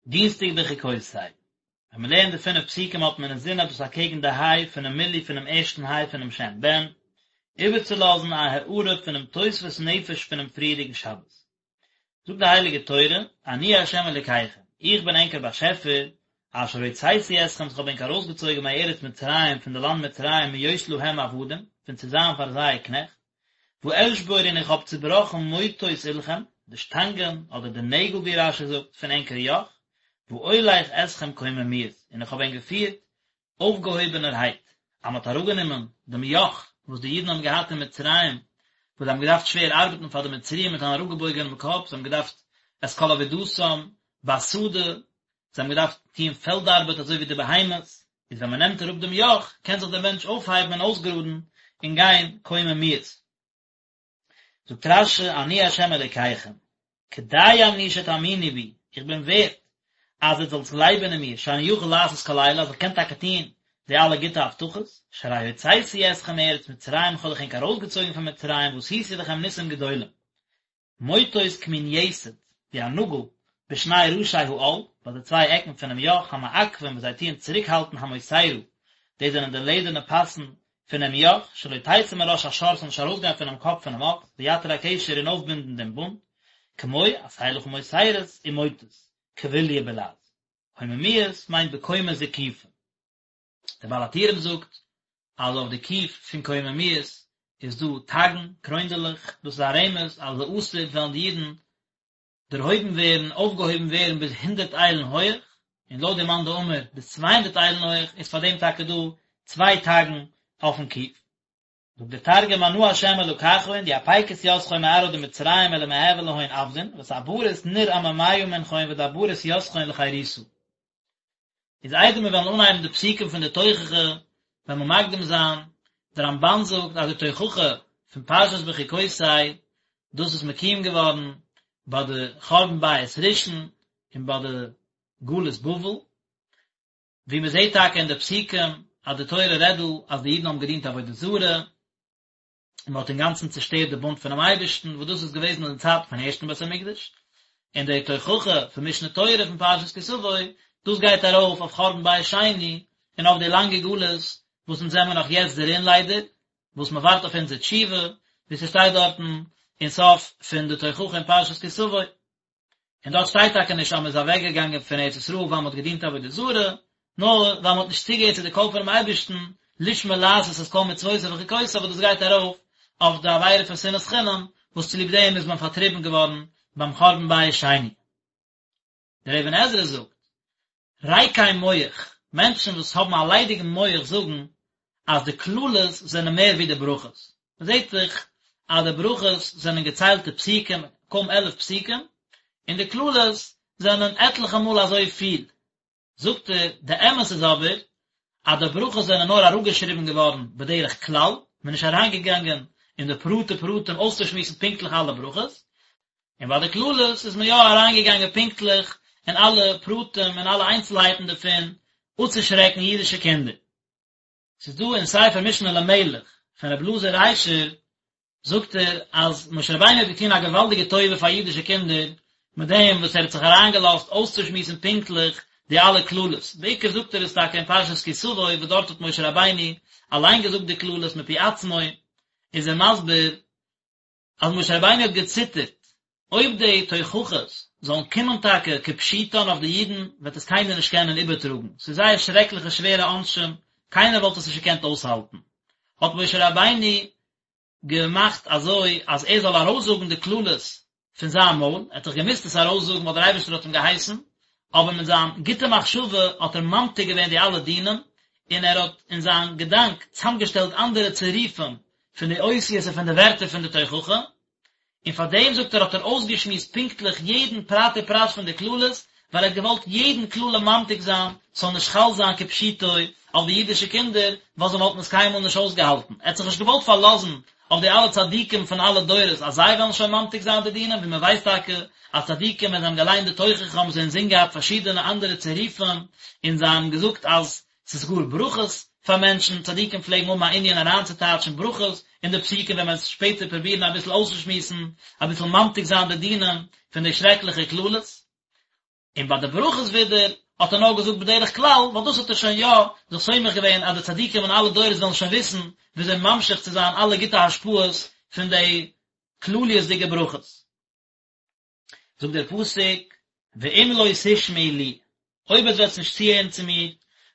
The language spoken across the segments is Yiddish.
דינסטאג בחוקותי. ווען מען לערנט די פינף פסוקים האט מען אינזין אז דאס אקעגן די היי פונעם מילוי פונעם ערשטן היי פונעם שם בן, איבערצולאזן א הארה פונעם תוספות נפש פונעם פריערדיגן שבת. זאגט די הייליגע תורה, אני ה' אלוקיכם, איך בין ענקער באשעפער, אשר הוצאתי אתכם, וואס כ'האב ענק ארויסגעצויגן מארץ מצרים, פון די לאנד מצרים, מהיות להם עבדים, פון צו זיין פאר זיי קנעכט, ואשבור און איך האב צובראכן מוטות עולכם, די שטאנגען, אדער די נעגל ווי רש"י זאגט, פון ענקער יאך, ואולך אתכם קוממיות, און איך האב ענק געפירט אויפגעהויבענערהייט, אז מען האט אראפגענומען דעם יאך וואס די אידן האבן געהאט אין מצרים, וואס זיי האבן געדארפט שווער ארבעטן פאר די מצריים מיט אן אראפגעבויגענעם קאפ, זיי האבן געדארפט את כל עבודתם בשדה, זיי האבן געדארפט טוען פעלד ארבעט אזוי ווי די בהמות, איז ווען מען נעמט אראפ דעם יאך, קען זיך דער מענטש אויפהייבן און אויסגראדן און גיין קוממיות. זאגט רש"י אני ה' אלוקיכם, כדאי אני שתאמינו בי, איך בין ווערט אז עטס זאלטס גלייבען אין מיר, שאני יכול לעשות כל אלה, אז איך קען טאקע טון די אלע גוטע הבטחות, שהרי הוצאתי אתכם מארץ מצרים, איך האב דאך ענק ארויסגעצויגן פון מצרים, ועשיתי לכם ניסים גדולים. מוטות כמין יתד, ווי א נאגל, בשני ראשי העול, ביי די צוויי עקן פונעם יאך, המעכבים וואס זיי טוען צוריקהאלטן המוסרה, דאס זענען די לעדערנע פאסן פונעם יאך, שלא תצא מראש השור ס'זאל נישט ארויסגיין פונעם קאפ פונעם אקס, ויתיר הקשר און אויפבינדן דעם בונד, כמו עשה לך מוסרות ומוטות, כבוליא בלע"ז. קוממיות מיינט בקומה זקופה. דער בעל הטורים זאגט אז אויף די קוף פון קוממיות איז דא תגין, קרוינדעלעך, דאס איז א רמז אז לעתיד וועלן די אידן דערהויבן ווערן, אויפגעהויבן ווערן ביז הונדערט איילן הויעך, און לויט די מאן דאמר ביז 200 איילן הויעך, איז פאר דעם טאקע דא צוויי תגין אויפן קוף. זאגט דער תרגום אנא השם אלקכון די אפיקית יתכון מארעא דמצרים מלמהוי להון עבדין ותברית נור עממיא מנכון ודברית יתכון לחירותא. איז איידער מיר וועלן אנהייבן די פסוקים פון די תוכחה וועלן מיר מקדים זיין, דער רמב"ן זאגט אז די תוכחה פון פרשת בחוקותי דאס איז מקוים געווארן ביי די חורבן בית ראשון און ביי די גלות בבל, ווי מען זעט טאקע אין די פסוקים אז די תורה רעדט דא אז די אידן האבן געדינט עבודה זרה, און מען האט אינגאנצן צעשטערט די בונד פונעם אייבערשטן, וואס דאס איז געוועזן אין די צייטן פון ערשטן בית המקדש, און די תוכחה פון משנה תורה פון פרשת כי תבוא, דאס גייט ארויף אויף חורבן בית שני, און אויף די לאנגע גלות וואס אונז זעמער נאך יעצט דערין ליידער, וואס מען ווארט אויף אונזער תשובה, ווי ס'שטייט דארטן אין סוף פון די תוכחה אין פרשת כי תבוא. און דארט שטייט טאקע נישט אז מען איז אוועק געגאנגען פון ארץ ישראל ווייל מען האט געדינט עבודה זרה, נאר ווייל מען האט נישט צוגעהערט צו די קול פונעם אייבערשטן, לשמור לעשות את כל מצוותיו וחוקותיו וואס דאס גייט ארויף אויף די עבירה פון שנאת חינם, וואס צוליב דעם איז מען פארטריבן געווארן ביים חורבן בית שני. דער אבן עזרא זאגט, ריקי מח, מענטשן וואס האבן א ליידיגן מח זאגן אז די קללות זענען מער ווי די ברכות. מען זעט דאך אז די ברכות זענען געציילטע פסוקים, קוים עלף פסוקים, און די קללות זענען עטליכע מאל אזוי פיל. זאגט ער, די אמת איז אבער אז די ברכות זענען נאר אראפגעשריבן געווארן בדרך כלל, מען איז נישט אריינגעגאנגען אין די פרטי פרטים אויסצושמועסן פונקטליך אלע ברכות, און ביי די קללות איז מען יא אריינגעגאנגען פונקטליך אין אלע פרטים און אלע איינצלהייטן דערפון, אפצושרעקן אידישע קינדער. ס'איז דא אין ספר משנה למלך פון רבי אלעזר ריישער, זאגט ער אז משה רבינו האט געטון א געוואלדיגע טובה פאר אידישע קינדער מיט דעם וואס ער האט זיך אריינגעלאזט אויסצושמועסן פונקטליך די אלע קללות, בעיקר זאגט ער עס טאקע אין פרשת כי תבוא וואס דארט האט משה רבינו אליין געזאגט די קללות מפי עצמו, איז ער מסביר אז משה רבינו האט געציטערט אויב די תוכחות זאלן קומען טאקע כפשוטן אויף די אידן וועט עס קיינער נישט קענען איבערטראגן, ס'איז זייער שרעקליכע שווערע עונשים, קיינער וואלט עס נישט געקענט אויסהאלטן, האט משה רבינו געמאכט אזוי אז ער זאל ארויסזאגן די קללות פון זיין מויל, ער האט דאך געמוזט עס ארויסזאגן ווייל דער אייבערשטער האט אים געהייסן, אבער מיט זיין גוטע מחשבה האט ער ממתיק געווען די אלע דינים, און ער האט אין זיין געדאנק צאמגעשטעלט אנדערע צירופים פון די אותיות און פון די ווערטער פון די תוכחה, און פאר דעם זאגט ער האט ער אויסגעשמועסט פונקטליך יעדן פרט ופרט פון די קללות, ווייל ער האט געוואלט יעדן קללה ממתיק זיין, ס'זאל נישט חל זיין כפשוטו אויף די אידישע קינדער, ווייל זיי וואלטן עס קיינמאל נישט אויסגעהאלטן. ער האט זיך נישט געוואלט פארלאזן אויף די אלע צדיקים פון אלע דורות אז זיי וועלן שוין ממתיק זיין די דינים, ווי מען ווייסט טאקע אז צדיקים ווען זיי האבן געליינט די תוכחה האבן זיי אינזין געהאט פארשידענע אנדערע צירופים, און זיי האבן געזאגט אז ס'איז גאר ברכות פאר מענטשן, צדיקים פלעגן האבן א ענין אריינצוטייטשן ברכות אין די פסוקים ווען מ'וועט שפעטער פרובירן אביסל אויסצושמועסן, אביסל ממתיק זיין די דינים פון די שרעקליכע קללות. און ביי די ברכות ווידער האט ער נאר געזאגט בדרך כלל, ווייל דאס האט ער שוין יא זיך סומך געווען אז די צדיקים אין אלע דורות וועלן שוין וויסן וויאזוי ממשיך צו זיין אלע גוטע השפעות פון די כלליות'דיגע ברכות. זאגט דער פסוק, ואם לא תשמעו לי, אויב עטס וועטס נישט צוהערן צו מיר,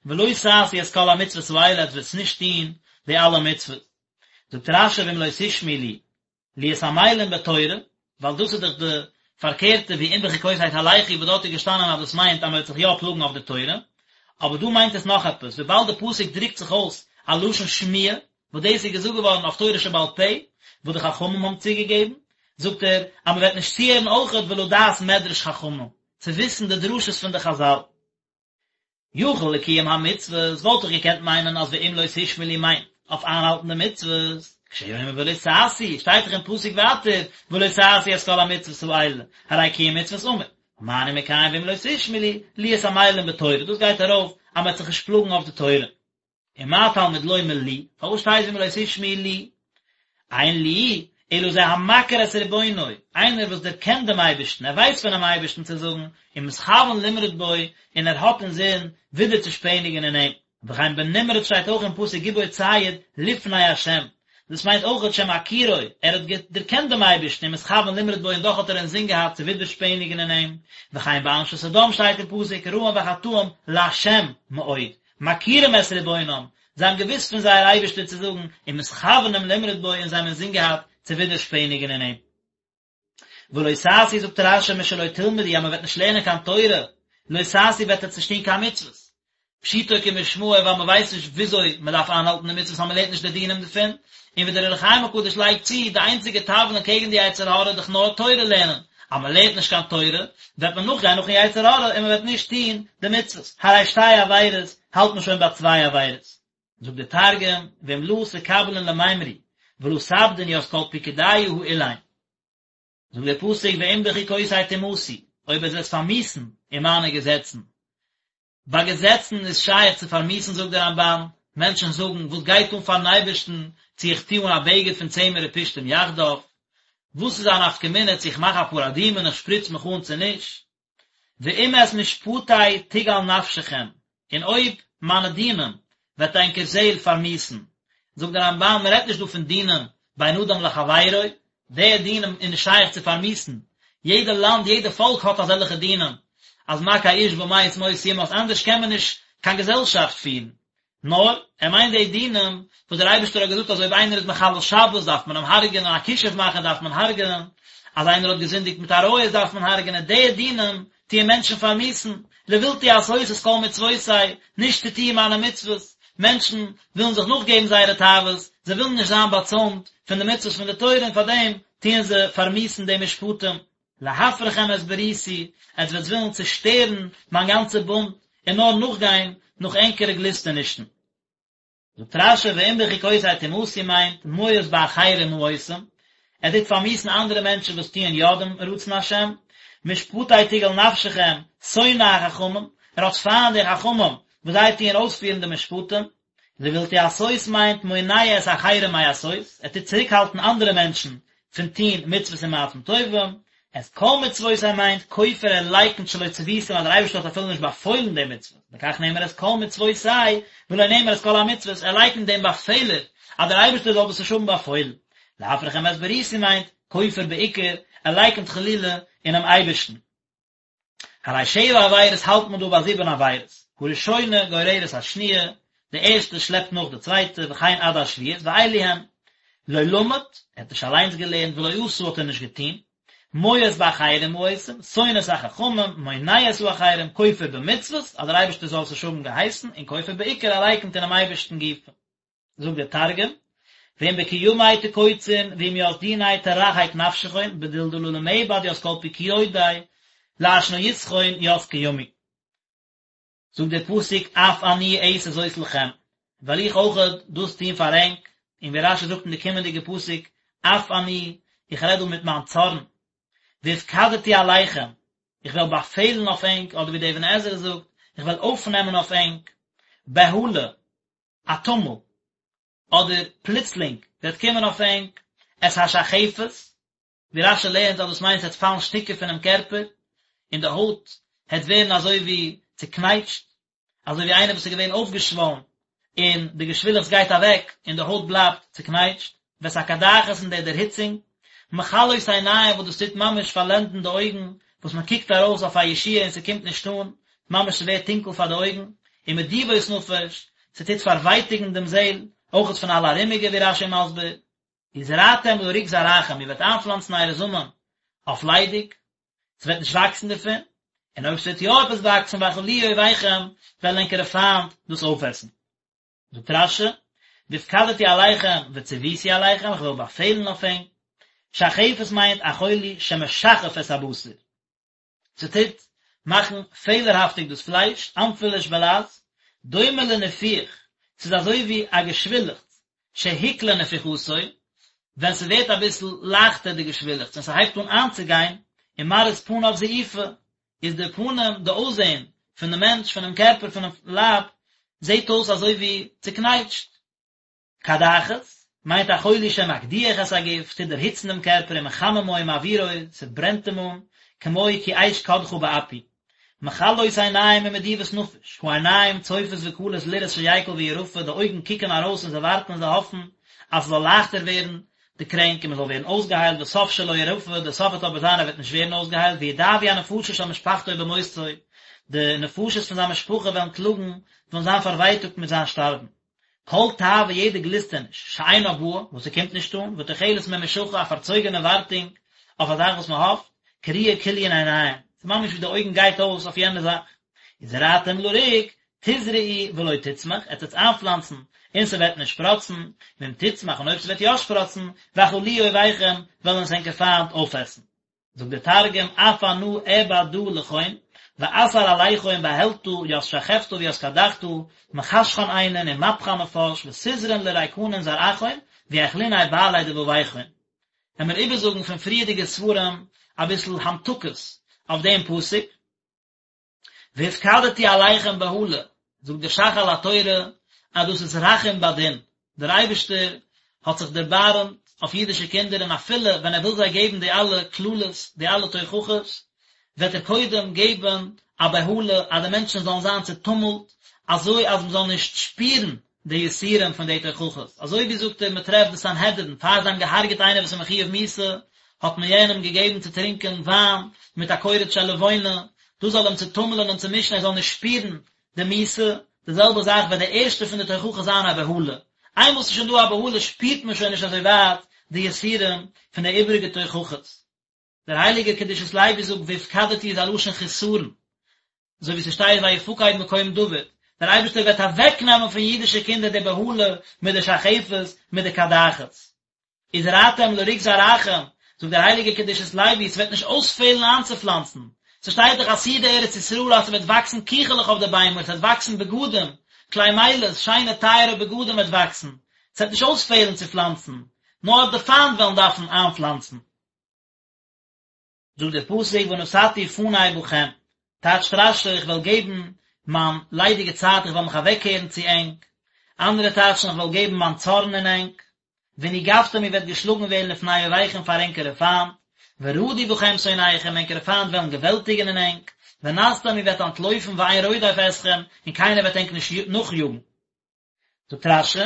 ולא תעשו את כל המצוות האלה, עטס וועטס נישט טון די אלע מצוות. זאגט רש"י ואם לא תשמעו לי, להיות עמלים בתורה, ווייל דאס איז דאך די פארקערטע ווי אם בחוקותי תלכו וואס דארט איז געשטאנען אז דאס מיינט אז מען וועט זיך יא פלאגן אויף די תורה, אבער דא מיינט עס נאך עפעס, וויבאלד די פסוק דרוקט זיך אויס א לשון שמיעה, וואס דאס איז געזאגט געווארן אויף תורה שבעל פה, וואס די חכמים האבן צוגעגעבן, זאגט ער אז מען וועט נישט צוהערן אויכעט ולדעת מדרש חכמים, צו וויסן די דרשות פון די חז"ל. יכול לקיום המצוות, וואלט איך געקענט מיינען אז ואם לא תשמעו לי מיינט אויף איינהאלטן די מצוות, כשהוא אומר ולא תעשו, שטייט דאך אין פסוק ווייטער ולא תעשו את כל המצוות האלה, הרי קיום מצוות אמור, מה אני מקיים ואם לא תשמעו לי, להיות עמלים בתורה, דאס גייט ארויף אז מען וועט זיך נישט פלאגן אויף די תורה. ומה תלמוד לומר לי, פארוואס שטייט ואם לא תשמעו לי? אין לי, אלא זה המכיר את רבונו, איינער וואס דערקענט דעם אייבערשטן, ער ווייסט פונעם אייבערשטן צו זאגן, ומתכוון למרוד בו, און ער האט אינזין ווידער צו שפעניגן אין אים. וכן בנמרוד שטייט אויך אין פסוק גיבור ציד לפני השם, דאס מיינט אויכעט שמכירו, ער האט דערקענט דעם אייבערשטן ומתכוון למרוד בו און דאך האט ער אינזין געהאט צו ווידערשפעניגן אין אים, וכן באנשי סדום שטייט אין פסוק רעים וחטאים לה' מאוד, מכירים את רבונם, זיי האבן געוואוסט פון זייער אייבערשטער צו זאגן, ומתכוונים למרוד בו און זיי האבן אינזין געהאט צו ווידערשפעניגן אין אים. ולא תעשו זאגט רש"י משלא תלמדו אז מען וועט נישט לערנען קיין תורה, לא תעשו וועט עטס נישט טון קיין מצוות. פשוטו כמשמעו ווייל מען ווייסט נישט וויאזוי מען דארף איינהאלטן די מצוות אז מען לערנט נישט די דינים דערפון, און ווי דער אור החיים הקדוש לייגט צו, די איינציגע תבלין קעגן די יצר הרע איז דאך נאר תורה לערנען, אז מען לערנט נישט קיין תורה, וועט מען נאכגיין נאכן יצר הרע און מען וועט נישט טון די מצוות, הרי שתי עבירות, האלט מען שוין ביי צוויי עבירות. זאגט דער תרגום, ואם לא תקבלון למימרי, ולא תעבדון ית כל פקודיא האלין. זאגט דער פסוק ואם בחוקותי תמאסו, אויב עטס וועט פארמיאוסן אין מיינע געזעצן. ביי געזעצן איז שייך צו פארמיאוסן זאגט דער רמב"ן, מענטשן זאגן, וואס גייט אן פארן אייבערשטן צו איך טו אן א בגד פון צמר ופשתים יחדיו? וואס איז א נפקא מינה צו איך מאך א פרה אדומה און איך שפריץ מיך אן צו נישט? ואם את משפטי תגעל נפשכם, און אויב מיינע דינים וועט ענקער זעהל פארמיאוסן. זאגט דער רמב"ן, מען רעדט נישט דא פון דינים בין אדם לחבירו, די דינים איז נישט שייך צו פארמיאוסן, יעדע לאנד, יעדע פאלק האט אזעלכע דינים, אז מכה איש ומת מות יומת, אנדערש קען מען נישט קיין געזעלשאפט פירן. נאר, ער מיינט די דינים וואס דער אייבערשטער האט געזאגט אז אויב איינער איז מחלל שבת דארף מען אים הרג'ענען, א כישוף מאכער דארף מען הרג'ענען, אז איינער האט געזינדיגט מיט עריות דארף מען הרג'ענען, די דינים טוען מענטשן פארמיאוסן, לבלתי עשות את כל מצוותי, נישט צו טוען מיינע מצוות, מענטשן ווילן זיך נאכגעבן זייערע תאוות, זיי ווילן נישט זיין באצוימט פון די מצוות פון די תורה און פארדעם טוען זיי פארמיאוסן די משפטים. להפרכם את בריתי, עטס וועטס ווילן צושטערן מיין גאנצע בונד, און נאר נאכגיין נאך ענקערע גליסטענישן. זאגט רש"י ואם בחוקותי תמאסו מיינט מואס באחרים העושים, ער טוט פארמיאוסן אנדערע מענטשן וואס טוען יא דעם רצון השם, משפטי תגעל נפשכם, שונא החכמים, ער האט פיינט די חכמים וואס זיי טוען אויספירן די משפטים, לבלתי עשות מיינט מונע את האחרים מעשות, ער טוט צוריקהאלטן אנדערע מענטשן פון טון מצוות און מעשים טובים, את כל מצוותי מיינט כופר ער לייקנט שלא צוויתים אז דער אייבערשטער האט אפילו נישט באפוילן די מצוות, לכך נאמר את כל מצוותי ולא נאמר את כל המצוות, ער לייקנט דעם באפעלער אז דער אייבערשטער זאל דאס נישט האבן באפוילן. להפרכם את בריתי מיינט כופר בעיקר, ער לייקנט חלילה אינעם אייבערשטן. הרי שבע עבירות האלט מען דא ביי זיבן עבירות, הראשונה גוררת השניה, די ערשטע שלעפט נאך די צווייטע, וכן עד השביעית, ואלו הן, לא למד, ער האט נישט אליינס געלערנט, ולא עשה האט ער נישט געטון, מואס באחרים העושים, שונא את החכמים, מונע את האחרים, כופר במצוות, אז דער אייבערשטער זאל עס נישט האבן געהייסן, און כופר בעיקר, ער לייקנט אינעם אייבערשטן גופא. זאגט דער תרגום, ואם בקימי תקוצון ואם ית דיני תרחק נפשכון בדיל דלא למעבד ית כל פקודי לאשניותכון ית קימי. זאגט דער פסוק אף אני אעשה זאת לכם, וועל איך אויכעט דאס טון פאר ענק, און ווי רש"י זאגט אין די קומענדיגע פסוק אף אני, איך רעד דא מיט מיין צארן, והפקדתי עליכם, איך וועל באפעלן אויף ענק, אדער ווי דער אבן עזרא זאגט, איך וועל אויפנעמען אויף ענק, בהלה, א טומל, אדער פלוצלינג וועט קומען אויף ענק, את השחפת, ווי רש"י לערנט אז דאס מיינט ס'וועט פאלן שטיקער פונעם קערפער, און די הויט. העט ווערן אזוי ווי צוקנייטשט, אזוי ווי איינער וואס איז געווען אויפגעשוואלן און די געשווילעכץ גייט אוועק און די הויט בלייבט צוקנייטשט, ואת הקדחת און די דערהיצונג, מכלות עיניים וואס דאס טוט ממש פארלענדן די אויגן, וואס מען קוקט ארויס אויף א ישועה און ס'קומט נישט אן, ממש ס'ווערט טונקל פאר די אויגן, ומדיבות נפש, ס'טוט פארווייטיגן דעם זעל, אויכעט פון אלע ארומיגע ווי רש"י מסביר. וזרעתם לריק זרעכם, איר וועט איינפלאנצן אייערע זאמען אויף ליידיג, ס'וועט נישט וואקסן דערפון, און אויב ס'וועט יא עפעס וואקסן ואכלוהו אויביכם, וועלן ענקערע פיינט דאס אויפעסן. זאגט רש"י, והפקדתי עליכם וצויתי עליכם, איך וועל באפעלן אויף ענק. שחפת מיינט א חולי שמשחף את הבשר. ס'טוט מאכן פעלערהאפטיג דאס פלייש, אנפילוש בלע"ז, דומה לניפוח, ס'איז אזוי ווי א געשווילעכץ, שהקלה נפיחתו, ווען ס'ווערט אביסל לייכטער די געשווילעכץ און ס'הייבט אן איינצוגיין, ומראית פניו זעופה, איז די פנים, די אויסזען, פון די מענטש, פונעם קערפער, פונעם לייב, זעט אויס אזוי ווי צוקנייטשט. קדחת, מיינט א חולי שמקדיח את הגוף, טוט דערהיצן דעם קערפער ומחממו ומבעירו, ס'ברענט אים אן, כמו כי אש קדחה באפי. מכלות עיניים ומדיבות נפש, העיניים צופות וכלות לראות שיקל וירפא, די אויגן קוקן ארויס און זיי ווארטן און זיי האפן אז ס'זאל לייכטער ווערן די קרענק און מ'זאל ווערן אויסגעהיילט וסוף שלא ירפא, די סוף וועט אבער זיין ער וועט נישט ווערן אויסגעהיילט, וידאבו הנפשות של משפחתו במותו, די נפשות פון זיין משפחה וועלן קלאגן, וועלן זיין פארווייטאגט מיט זיין שטארבן. כל תאווה יעדע גליסטעניש, שאינה באה, וואס ס'קומט נישט אן, ותוחלת ממושכה, א פארצויגענע ווארטונג אויף א זאך וואס מ'האפט, קרויה כליון עיניים, ס'איז ממש ווי די אויגן גייט אויס אויף יענע זאך. וזרעתם לריק, תזרעו ולא תצמח, עטס וועטס איינפלאנצן, און ס'וועט נישט שפראצן, ואם תצמח, און אויב ס'וועט יא שפראצן, ואכלוהו אויביכם, וועלן עס ענקער פיינט אויפעסן. זאגט דער תרגום, אף אנא אעבד דא לכון, ואתער עליכון בהלתא ית שחפתא וית קדחתא, מחשכן עיינין ומפכן נפש, ותזרעון לריקנין זרעכון, ויאכלוניה בעלי דבביכון. וועמיר איבערזאגן פון פריערדיגע ספרים אביסל המתקות אויף דעם פסוק. והפקדתי עליכם בהלה, זאגט דער ש"ך על התורה אז דאס איז רחום בדין, דער אייבערשטער האט זיך דערבארעמט אויף אידישע קינדער און אפילו ווען ער וויל זיי געבן די אלע קללות, די אלע תוכחות, וועט ער קודם געבן א בהלה אז די מענטשן זאלן זיין צעטומלט, אזוי אז מען זאל נישט שפירן די יסורים פון די תוכחות, אזוי ווי זאגט ער מען טרעפט די סנהדרין פאר זיי האבן געהארגעט איינער וואס איז מחויב מיתה, האט מען יענעם געגעבן צו טרינקען וויין מיט א קורץ של לבונה, דאס זאל אים צוטומלען און צומישן ער זאל נישט שפירן די מיתה, די זעלבע זאך וועט די ערשטע פון די תוכחות זיין א בהלה, איינמאל ס'איז שוין דא א בהלה שפירט מען שוין נישט אזוי ווייט די יסורים פון די איבעריגע תוכחות. דער הייליגער קדושת לוי זאגט והפקדתי איז א לשון חסרון, אזוי ווי ס'שטייט ויפקד מקום דוד, דער אייבערשטער וועט אוועקנעמען פון אידישע קינדער די בהלה מיט די שחפת מיט די קדחת. וזרעתם לריק זרעכם, זאגט דער הייליגער קדושת לוי, ס'וועט נישט אויספעלן איינצופלאנצן, ס'שטייט דאך עתידה ארץ ישראל אז ס'וועט וואקסן קיכעלעך אויף די ביימער, ס'וועט וואקסן בגדים, כלי מילת, שיינע טייערע בגדים וועט וואקסן, ס'וועט נישט אויספעלן צו פלאנצן, נאר די פיינט וועלן דארפן איינפלאנצן. זאגט דער פסוק ונתתי פני בכם, טייטשט רש"י איך וועל געבן מיין ליידיגע צייט איך וועל מיך אוועקקערן צו ענק, אנדערע טייטשן איך וועל געבן מיין צארן אין ענק, ונגפתם איר וועט געשלאגן ווערן לפני אויביכם פאר ענקערע פיינט, ורדו בכם שונאיכם ענקערע פיינט וועלן געוועלטיגן אין ענק, ונסתם איר וועט אנטלויפן ואין רודף אתכם און קיינער וועט ענק נישט נאכיאגן. זאגט רש"י,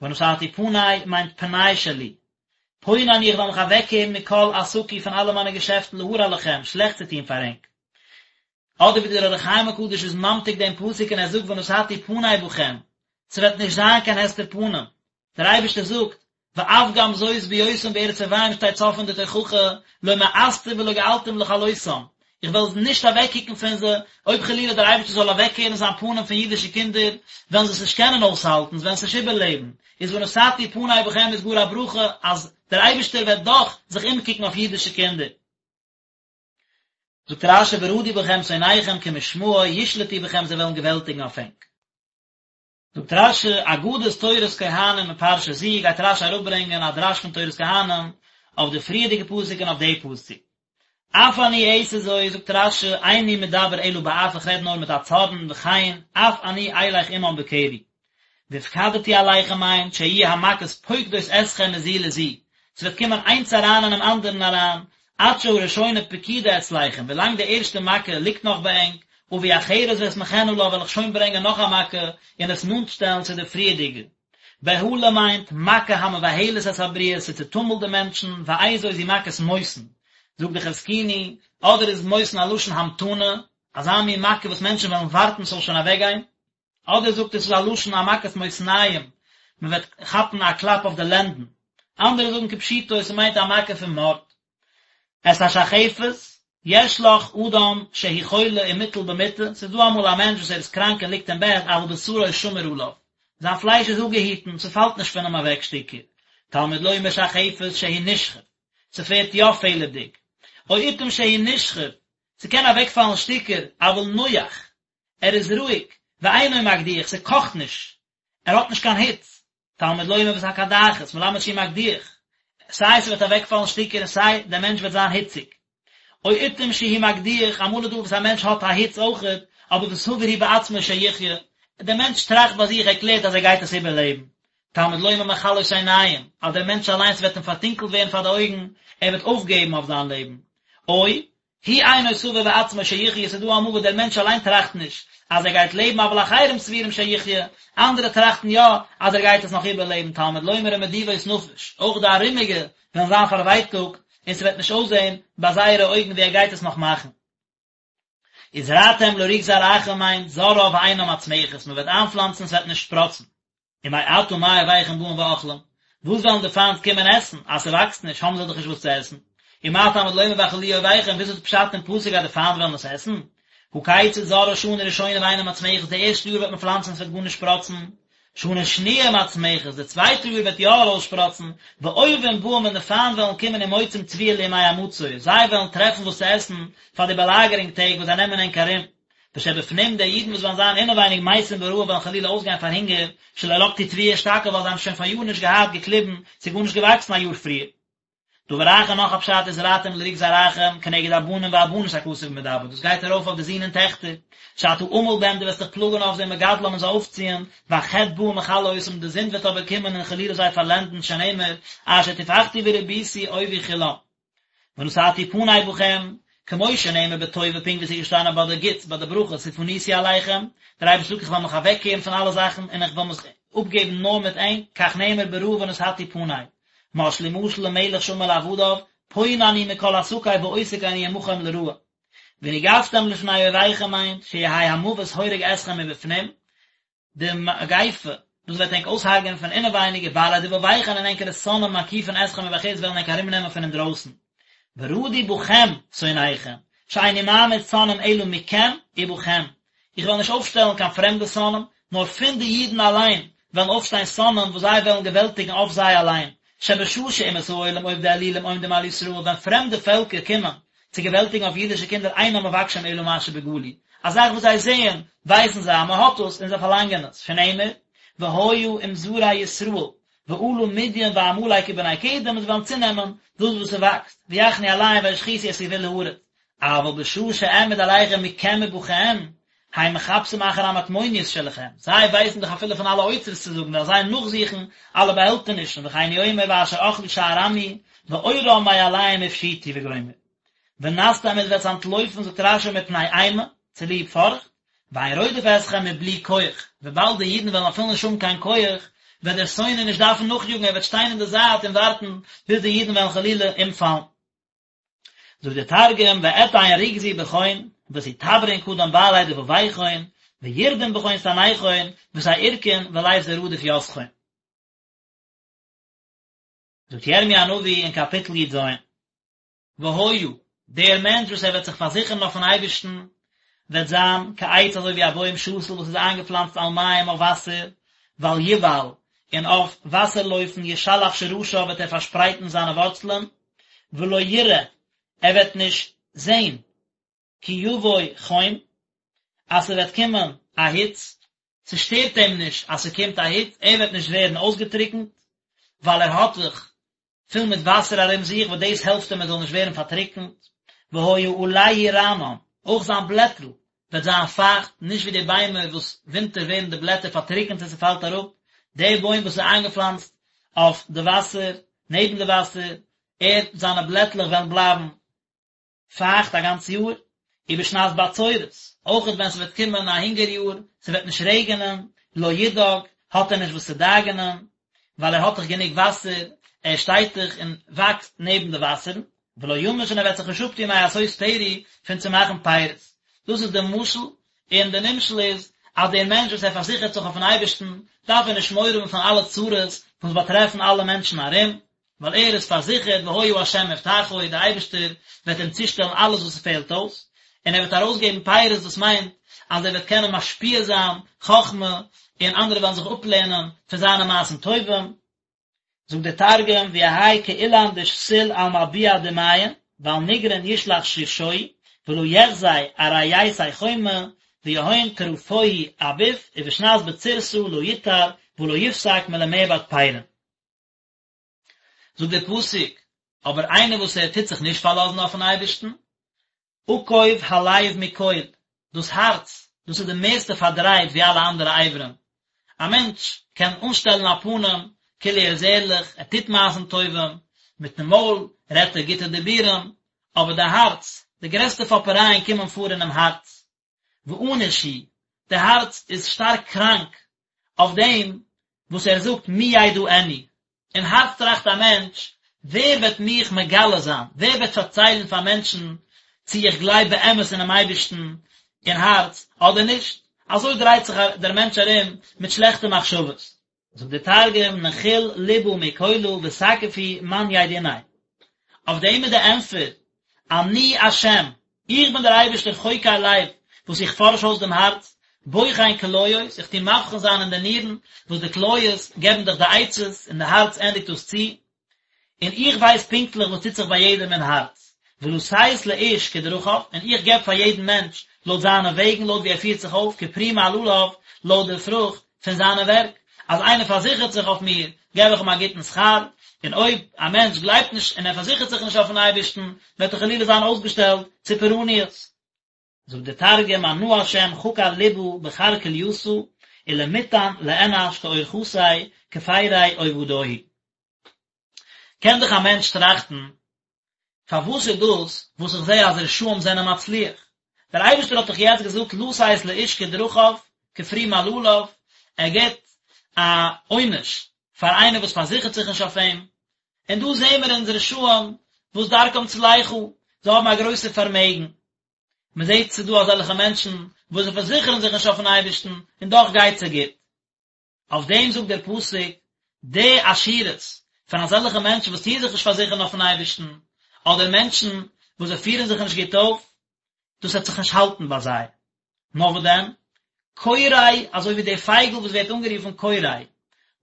ונתתי פני מיינט פנאי שלי, פונה אני איך וועל מיך אוועקקערן מכל עסקי פון אלע מיינע געשעפטן להרע לכם, שלעכט צו טון פאר ענק. אדער ווי דער אור החיים הקדוש איז ממתיק דעם פסוק און ער זאגט ונתתי פני בכם, ס'וועט נישט זיין קיין הסתר פנים, דער אייבערשטער זאגט, ואף גם זאת בהיותם בארץ אויביהם שטייט סוף פון די תוכחה, לא מאסתים ולא געלתים לכלותם, איך וועל נישט אוועקקוקן פון זיי, אויב חלילה דער אייבערשטער זאל אוועקקערן זיין פנים פון אידישע קינדער, וועלן זיי עס נישט קענען אויסהאלטן, זיי וועלן עס נישט איבערלעבן, איז ונתתי פני בכם איז גאר א ברכה אז דער אייבערשטער וועט דאך זיך אומקוקן אויף אידישע קינדער. זאגט רש"י ורדו בכם שונאיכם כמשמעו ישלטו בכם זיי וועלן געוועלטיגן אויף ענק. זאגט רש"י, אגדת תורת כהנים מפרשה זו, גייט רש"י אראפברענגען א דרש פון תורת כהנים אויף די פריערדיגע פסוק און אויף די פסוק. אף אני אעשה זאת, זאגט רש"י, איני מדבר אלא באף איך רעד נאר מיט א צארן וכן, אף אני אלך עמם בקרי. והפקדתי עליכם מיינט שיהיו המכות פוקדות אתכם מזו לזו, ס'וועט קומען איינס אריין אינעם אנדערן אריין, עד שהראשונה פקודה אצלכם, ווילאנג די ערשטע מכה ליגט נאך ביי ענק, אביא אחרת ואסמכנה לה וועל איך שוין ברענגען נאך א מכה און עס נאנט שטעלן צו די פריערדיגע. בהלה מיינט, מכה המבהלת את הבריות, ס'צעטומלט די מענטשן, ואיזו זו מכת מותן. זאגט די חזקוני, אדער איז מותן א לשון המתנה, אזא מין מכה וואס מענטשן וועלן ווארטן ס'זאל שוין אוועקגיין, אדער זאגט ער ס'איז א לשון א מכת מותניים, מ'וועט כאפן א קלאפ אויף די לענדן. אנדערע זאגן כפשוטו ס'מיינט א מכה פון מארד. את השחפת, יש לך אדם שהוא חולה ומוטל במיטה, ס'איז דא אמאל א מענטש וואס ער איז קראנק און ליגט אין בעט, אבל בשרו שמור עליו, זיין פלייש איז אפגעהיטן, ס'פאלט נישט פון אים אוועק שטיקער. תלמוד לומר שחפת שהוא נשחף, ס'ווערט יא פעלערדיג. או עתים שהוא נשחף, ס'קען אוועקפאלן שטיקער, אבל נוח, ער איז רואיג, ואינו מקדיח, ס'קאכט נישט, ער האט נישט קיין היץ, תלמוד לומר ואת הקדחת, מלמד שהוא מקדיח, סיי ס'וועט אוועקפאלן שטיקער און סיי דער מענטש וועט זיין היציג. או עתים שהוא מקדיח, אמאל איז דא וואס א מענטש האט א היץ אויכעט, אבער וסבור הוא בעצמו שיחיה, דער מענטש טראכט ביי זיך, ער קלערט אז ער גייט עס איבערלעבן. תלמוד לומר מכלות עיניים, אז דער מענטש אליינס וועט אים פארטונקלט ווערן פאר די אויגן, ער וועט אויפגעבן אויף זיין לעבן. או הוא אינו סבור בעצמו שיחיה, ס'איז דא אמאל וואס דער מענטש אליין טראכט נישט אז ער גייט לעבן אבל אחרים סבורים שיחיה, אנדערע טראכטן יא אז ער גייט עס נאך איבערלעבן, תלמוד לומר ומדיבות נפש, אויך די ארומיגע וועלן זיין פארווייטאגט און ס'וועט נישט אויסזען ביי זייערע אויגן ווי ער גייט עס נאך מאכן. וזרעתם לריק זרעכם מיינט זורעה ואינה מצמחת, מ'וועט איינפלאנצן ס'וועט נישט שפראצן. ומעתה מה אויביכם באים ואוכלים, וואס וועלן די פיינט קומען עסן, אז ס'וואקסט נישט האבן זיי דאך נישט וואס צו עסן, ומה תלמוד לומר ואכלוהו אויביכם, וויאזוי איז פשט אין פסוק אז די פיינט וועלן עס עסן? הא כיצד זורעה שנה ראשונה ואינה מצמחת, די ערשטע יאר וועט מען פלאנצן ס'וועט גארנישט שפראצן, שנה שניה מצמחת, די צווייטע יאר וועט יא ארויסשפראצן, ואויבים באים און די פיינט וועלן קומען ומוצאים תבואה לימי המצור, זיי וועלן טרעפן וואס צו עסן פאר די באלאגערונג טעג וואס זיי נעמען ענק ארום. ושבפנים די אידן וואס וועלן זיין אינעווייניג מתים ברעב וועלן חלילה אויסגיין פאר הונגער, שלא לקטו תבואה אשתקד ווייל זיי האבן שוין פאריאר נישט געהאט געקליבן, ס'איז גארנישט געוואקסן א יאר פריער. דבר אחר נאך א פשט וזרעתם לריק זרעכם כנגד הבנים והבנות הכתוב מדבר דאס גייט ארויף אויף די זין און טעכטער, שאתה עמל בהם דו וועסט דיך פלאגן אויף זיי ומגדלם און זיי אויפציען, והחטא בא ומכלה אותם די זינד וועט אבער קומען און חלילה זיי פארלענדן שנאמר אשר טפחתי ורביתי אויבי כולם. ונתתי פני בכם, כמו שנאמר בטובה פונקט ווי עס איז געשטאנען ביי די גוטס ביי די ברכות ופניתי אליכם, דער אייבערשטער זאגט איך וועל מיך אוועקקערן פון אלע זאכן און איך וועל מיך אפגעבן נאר מיט ענק, כך נאמר ברעה ונתתי פני. משלו משל למלך שאמר לעבדיו, פונה אני מכל עסקי ועוסק אני עמכם לרעה. ונגפתם לפני אויביכם מיינט, שיהא המוות הורג אתכם מבפנים, די מגיפה, דאס וועט ענק אויסהרג'ענען פון אינעווייניג, ובעלי דבביכון און ענקערע שונאים מקיפין אתכם מבחוץ וועלן ענק ארומנעמען פון אינדרויסן. ורדו בכם שונאיכם, שאיני מעמיד שונאים אלא מכם ובכם, איך וועל נישט אויפשטעלן קיין פרעמדע שונאים, נאר פון די אידן אליין וועלן אויפשטיין שונאים וואס זיי וועלן געוועלטיגן אויף זיי אליין, שבשעה שאומות העולם עובדי אלילים עומדים על ישראל, ווען פרעמדע פעלקער קומען צו געוועלטיגן אויף אידישע קינדער אינם מבקשים אלא מה שבגלוי, א זאך וואס זיי זעען, ווייסן זיי אז מען האט עס און זיי פארלאנגען עס, שנאמר, והיה אם זרע ישראל, ועלה מדין ועמלק ובני קדם און זיי וועלן צונעמען דאס וואס ס'וואקסט, ויחנו עליהם וישחיתו את גבול הארץ, אבל בשעה שאעמיד עליכם מכם ובכם, הם מחפשים אחר המטמוניות שלכם, זיי ווייסן דאך אפילו פון אלע אוצרות צו זאגן, וועלן זיי נאכזוכן אלע באהעלטענישן, וכן הוא אומר ואשר אכלו שאר עמי, ועורם מעליהם הפשיטו וגומר. ונסתם עטס וועטס אנטלויפן זאגט רש"י מפני אימה, צוליב פארכט, ואין רודף אתכם מבלי כח, וויבאלד די אידן וועלן אפילו נישט האבן קיין כח, וועט דער שונא נישט דארפן נאכיאגן, ער וועט שטיין אין די זייט און ווארטן ביז די אידן וועלן חלילה אומפאלן. זאגט דער תרגום ואתיין רוגזי בכון ותתברון קדם בעלי דבביכון וירדון בכון סניכון ותערקון ולית דרדיף יתכון. זאגט ירמי' הנביא אין קאפיטל י"ז, והיה, דער מענטש וואס ער וועט זיך פארזיכערן אויפן אייבערשטן, וועט זיין כעץ אזוי ווי א בוים שתול וואס איז איינגעפלאנצט על מים אויף וואסער, ועל יובל, און אויף וואסער לויפן ישלח שרשיו וועט ער פארשפרייטן זיינע ווארצלען, ולא יראה, ער וועט נישט זען, כי יבוא חום, אז ס'וועט קומען א היץ, ס'שטערט אים נישט אז ס'קומט א היץ, ער וועט נישט ווערן אויסגעטריקנט, ווייל ער האט זיך פול מיט וואסער ארום זיך, וואס דאס העלפט אים ער זאל נישט ווערן פארטריקנט, והיה עלהו רענן, אויך זיין בלעטל וועט זיין פייכט, נישט ווי די ביימער וואס ווינטער ווערן די בלעטער פארטריקנט און ס'פאלט אראפ, דער בוים וואס איז איינגעפלאנצט אויף די וואסער, נעבן די וואסער, ער, זיינע בלעטלעך וועלן בלייבן. פייכט א גאנץ יאר, ובשנת בצורת, אויכעט ווען ס'וועט קומען א הונגער יאר, ס'וועט נישט רעגענען, לא ידאג, האט ער נישט וואס צו דאגה'נען, ווייל ער האט דאך גענוג וואסער, ער שטייט דאך און וואקסט נעבן די וואסערן, ולא ימוש און ער וועט זיך נישט אפטון מעשות פרי פון צו מאכן פירות. דאס איז די משל, און די נמשל איז, אז דער מענטש וואס ער פארזיכערט זיך אויפן אייבערשטן, דארף ער נישט מורא האבן פון אלע צרות וואס באטרעפן אלע מענטשן ארום, ווייל ער איז פארזיכערט והיה ה' מבטחו, דער אייבערשטער וועט אים צושטעלן אלעס וואס ס'פעלט אויס, און ער וועט ארויסגעבן פירות דאס מיינט אז ער וועט קענען משפיע זיין חכמה און אנדערע וועלן זיך אפלערנען פון זיינע מעשים טובים. זאגט דער תרגום ויהי כאילן דשתיל על מלביע דמיין ועל נגרין ישלח שרשוהי ולא יחזי ארעיתיה חומא ויהון טרפוהי אביף ובשנת בצורתא לא יטר ולא יפסק מלמעבד פירין. זאגט דער פסוק, אבער איינער וואס ער טוט זיך נישט פארלאזן אויפן אייבערשטן, עקוב הלב מכל, דאס הארץ, דאס איז די מערסטע פארדרייט ווי אלע אנדערע אברים, א מענטש קען אנשטעלן א פנים כאילו ער איז ערליך, ער טוט מעשים טובים, מיטן מויל רעדט ער גוטע דיבורים, אבער די הארץ, די גרעסטע פאפערייען קומען פאר אינעם הארץ. ואנוש הוא, די הארץ איז שטארק קראנק אויף דעם וואס ער זאגט מי ידעני, אין הארץ טראכט א מענטש, ווער וועט מיך מגלה זיין, ווער וועט פארציילן פאר מענטשן צי איך גלייב באמת אינעם אייבערשטן אין הארץ אדער נישט, אזוי דרייט זיך דער מענטש ארום מיט שלעכטע מחשבות. זאגט דער תרגום נחיל לבא מכלא ותקיף הוא מן ידעיניה, אויף דעם איז די ענטפער, אני השם, איך בין דער אייבערשטער חוקר לב, וואס איך פארש אויס דעם הארץ, בוחן כליות, איך טו מבחין זיין אין די נירן, וואס די כליות געבן דאך די עצות, און די הארץ ענדיגט דאס צו, און איך ווייס פונקטליך וואס טוט זיך ביי יעדעם אין הארץ, ולתת לאיש כדרכיו, און איך געב פאר יעדן מענטש לויט זיינע וועגן, לויט ווי ער פירט זיך אויף, כפרי מעלליו, לויט די פרוכט פון זיינע ווערק, אז איינער פארזיכערט זיך אויף מיר, געב איך אים א גוטן שכר, און אויב א מענטש גלייבט נישט און ער פארזיכערט זיך נישט אויפן אייבערשטן, וועט ער חלילה זיין אויסגעשטעלט צו פורעניות. זאגט דער תרגום אנא השם חקר לבא בחר כליתא ולמיתן לאנש כאורחתיה כפרי עובדוהי. קען דאך א מענטש טראכטן, פארוואס איז דאס וואס איך זע אז רשעים זענען מצליח? דער אייבערשטער האט דאך יעצט געזאגט לתת לאיש כדרכיו כפרי מעלליו, ער גיבט א עונש פאר איינער וואס פארזיכערט זיך נישט אויף אים, און דא זעען מיר אונז רשעים וואס דרכם צלחה, זיי האבן א גרויסע פארמעגן, מען זעט ס'איז דא אזעלכע מענטשן וואס זיי פארזיכערן זיך נישט אויפן אייבערשטן און דאך גייט זיי גוט. אויף דעם זאגט דער פסוק, די עשירות פון אזעלכע מענטשן וואס טוען זיך נישט פארזיכערן אויפן אייבערשטן, אדער מענטשן וואס זיי פירן זיך נישט גוט אויף, דאס וועט זיך נישט האלטן ביי זיי. נאר וואס דען? קורא, אזוי ווי די פייגל וואס ווערט אנגערופן קורא,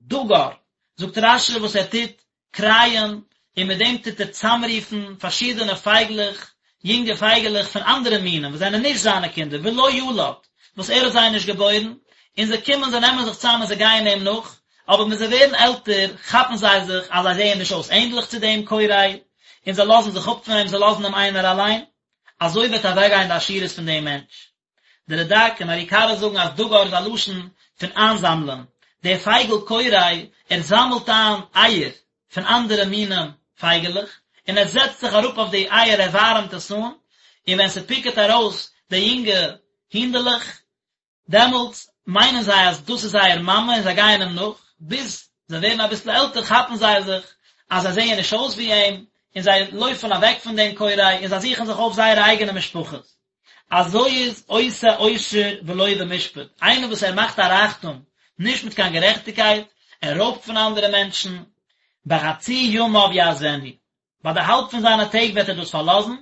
דגר, זאגט רש"י וואס ער טוט קרייען, און מיט דעם טוט ער צאמרופן פארשידענע פייגלעך, יונגע פייגעלעך פון אנדערע מינים וואס זענען נישט זיינע קינדער, ולא ילד, וואס ער האט זיי נישט געבוירן, און זיי קומען, זיי נעמען זיך צאם און זיי גייען אים נאך, אבער ווען זיי ווערן עלטער, כאפן זיי זיך אז זיי זעען נישט אויס ענדליך צו דעם קורא, און זיי לאזן זיך אפ פון אים, זיי לאזן אים איינער אליין. אזוי וועט אוועקגיין די עשירות פון דעם מענטש. די רד"ק און מהר"י קרא זאגן אז דגר איז א לשון פון איינזאמלען, דער פייגל קורא, ער זאמלט איין אייער פון אנדערע מינים פייגעלעך, און ער זעצט זיך אראפ אויף די אייער, ער ווארעמט עס אן, און ווען ס'פיקעט ארויס די יונגע הינדעלעך, דעמאלטס מיינען זיי אז דאס איז זייער מאמע און זיי גייען אים נאך, ביז זיי ווערן אביסל עלטער כאפן זיי זיך אז זיי זעען נישט אויס ווי אים, און זיי לויפן אוועק פון דעם קורא און זיי זוכן זיך אויף זייערע אייגענע משפחות. אזוי איז עושה עושר ולא במשפט, איינער וואס ער מאכט א רייכטום נישט מיט קיין גערעכטיגקייט, ער רויבט פון אנדערע מענטשן, בחצי ימיו יעזבנו, ביי די האלב פון זיינע טעג וועט ער דאס פארלאזן,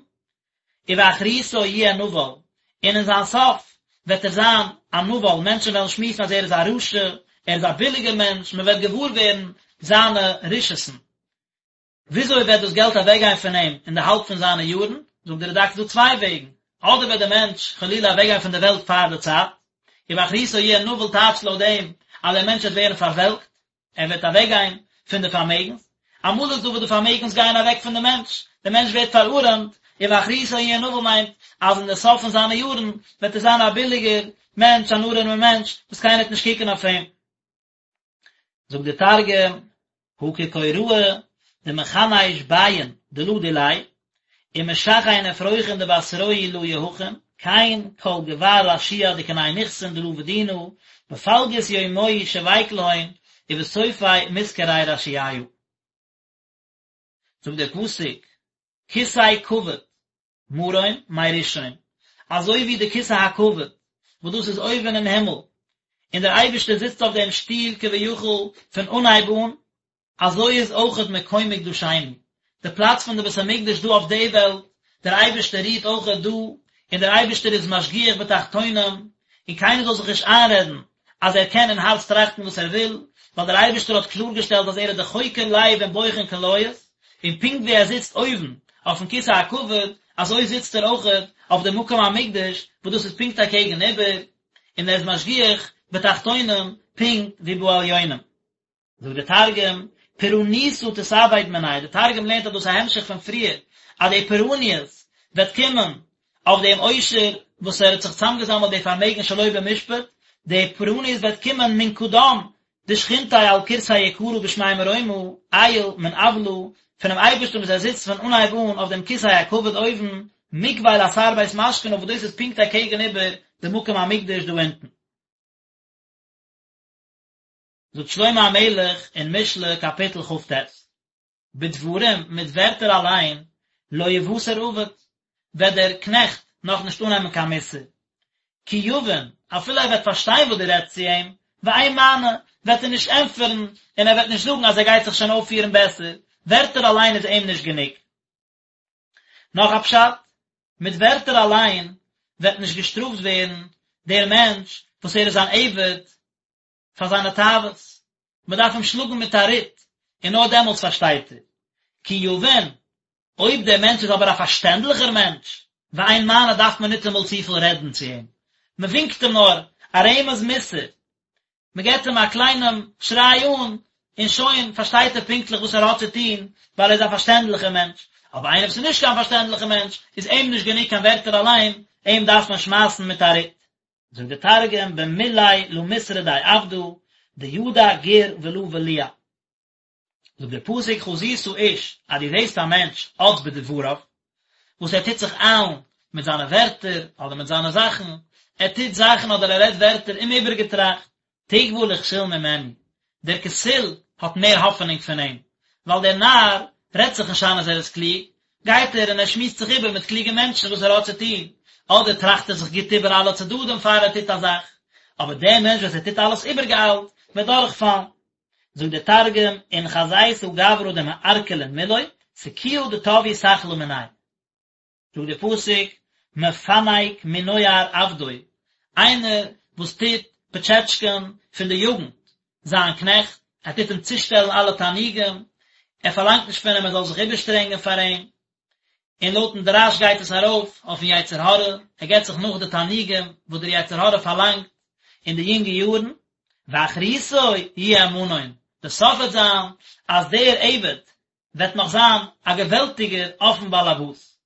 ובאחריתו יהיה נבל, און אין זיין סוף וועט ער זיין א נבל, מענטשן וועלן שמועסן אז ער איז א רשע, ער איז א ביליגער מענטש, מען וועט געוואר ווערן זיינע רשעות'ן. וויאזוי וועט דאס געלט אוועקגיין פון אים אין די האלב פון זיינע יארן? זאגט דער רד"ק ס'איז דא צוויי וועגן, אדער וועט דער מענטש חלילה אוועקגיין פון דער וועלט פאר די צייט, ובאחריתו יהיה נבל טייטשט לויט דעם אז דער מענטש וועט ווערן פארוועלקט, ער וועט אוועקגיין פון די פארמעגנס, אמאל איז דא וואס די פארמעגנס גייען אוועק פון די מענטש, דער מענטש ווערט פארארעמט, ובאחריתו יהיה נבל מיינט אז אין די סוף פון זיינע יארן וועט ער זיין א ביליגער מענטש, אן ארעמער מענטש, וואס קיינער וועט נישט קוקן אויף אים. זאגט דער תרגום, הא כקוראי דמכניש ביין דלא דיליה. ומשכין אפרוחין דבתרוהי לא יהכין, כן כל גבר רשיע דקני נכסין דלא בדינא, בפלגות יומוהי שביק להון, ובסופי מתקרי רשיעיא. זאגט דער פסוק, כסא כבוד מרום מראשון, אזוי ווי די כסא הכבוד וואס דאס איז אויבן אין הימל, און דער אייבערשטער זיצט אויף דעם שטול כביכול פון אנהייב אן, אזוי איז אויכעט מקום מקדשינו, די פלאץ פון די בית המקדש דא אויף די וועלט, דער אייבערשטער רוהט אויכעט דא, און דער אייבערשטער איז משגיח בתחתונים, און קיינער זאל זיך נישט איינרעדן אז ער קען אין הארץ טראכטן וואס ער וויל, ווייל דער אייבערשטער האט קלארגעשטעלט אז ער איז דער חוקר לב און בוחן כליות, און פונקט ווי ער זיצט אויבן אויפן כסא הכבוד, אזוי זיצט ער אויכעט אויף די מקום המקדש, וואס דאס איז פונקט אקעגן איבער, און ער איז משגיח בתחתונים פונקט ווי בעליונים. זאגט דער תרגום, פורענותא תתאבד מניה, דער תרגום לערנט אז דאס איז א המשך פון פריער, אז די פורעניות וועט קומען אויף דעם עושר וואס ער האט זיך צוזאמגעזאמלט די פארמעגן שלא במשפט, די פורעניות וועט קומען מן קדם דשכינתיה על כורסי יקרא בשמי מרומא, עייל מן אוולא, פונעם אייבערשטן וואס ער זיצט פון אנהייב אן אויף דעם כסא הכבוד אויבן, מוקביל אתר בית משכנא וואס דאס איז פונקט אקעגן איבער די מקום המקדש דא אונטן. זאגט שלמה המלך אין משלי קאפיטל כ"ט, בדברים, מיט ווערטער אליין, לא יוסר עבד, וועט דער קנעכט נאך נישט אננעמען קיין מוסר, כי יבין, אפילו ער וועט פארשטיין וואס דו רעדסט צו אים, ואין מענה, וועט ער נישט ענטפערן, און ער וועט נישט זאגן אז ער גייט זיך שוין אויפפירן בעסער, ווערטער אליין איז אים נישט גענוג. נאך א פשט, מיט ווערטער אליין וועט נישט געשטראפט ווערן דער מענטש וואס ער איז אן עבד פאר זיינע תאוות, מען דארף אים שלאגן מיט א רוט, און נאר דעמאלטס פארשטייט ער. כי יבין, אויב דער מענטש איז אבער א פארשטענדליכער מענטש, ואין מענה דארף מען ניטאמאל צופיל רעדן צו אים, מען ווינקט אים נאר א רמז מוסר, מען געבט אים א קליינעם שריי אן, און שוין פארשטייט ער פונקטליך וואס ער האט צו טון, ווייל ער איז א פארשטענדליכער מענטש. אבער איינער וואס איז נישט קיין פארשטענדליכער מענטש, איז אים נישט גענוג קיין ווערטער אליין, אים דארף מען שמייסן מיט א רוט. זאגט דער תרגום במילוי לא מתרדי עבדא דידע גור ולא בליע. זאגט דער פסוק חזית איש אז דו זעסט א מענטש אץ בדבריו, וואס ער טוט זיך איילן מיט זיינע ווערטער אדער מיט זיינע זאכן, ער טוט זאכן אדער ער רעדט ווערטער אומאיבערגעטראכט, תקוה לכסיל ממנו, דער כסיל האט מער האפענונג פון אים, ווייל דער נאר רעדט זיך נישט איין אז ער איז קלוג, גייט ער און ער שמועסט זיך איבער מיט קלוגע מענטשן וואס ער האט צו טון, אדער טראכט ער זיך גוט איבער אלע צדדים פאר ער טוט א זאך, אבער דער מענטש וואס ער טוט אלעס איבערגעאיילט, וועט דורכפאלן. זאגט דער תרגום, אין חזיתא גברא דמערקלין מילוי, סכויא דטב יסכלא מניה. זאגט דער פסוק, מפנק מנוער עבדו, איינער וואס טוט פאטשעטשקען פון די יוגנט זיין קנעכט, ער טוט אים צושטעלן אלע תענוגים, ער פארלאנגט נישט פון אים ער זאל זיך איבערשטרענגען פאר אים, און לויטן דרש גייט עס ארויף אויפן יצר הרע, ער געבט זיך נאך די תענוגים וואס דער יצר הרע פארלאנגט אין די יונגע יארן, ואחריתו יהיה מנון, די סוף וועט זיין אז דער עבד וועט נאך זיין א געוועלטיגער אויפן באלעבאס.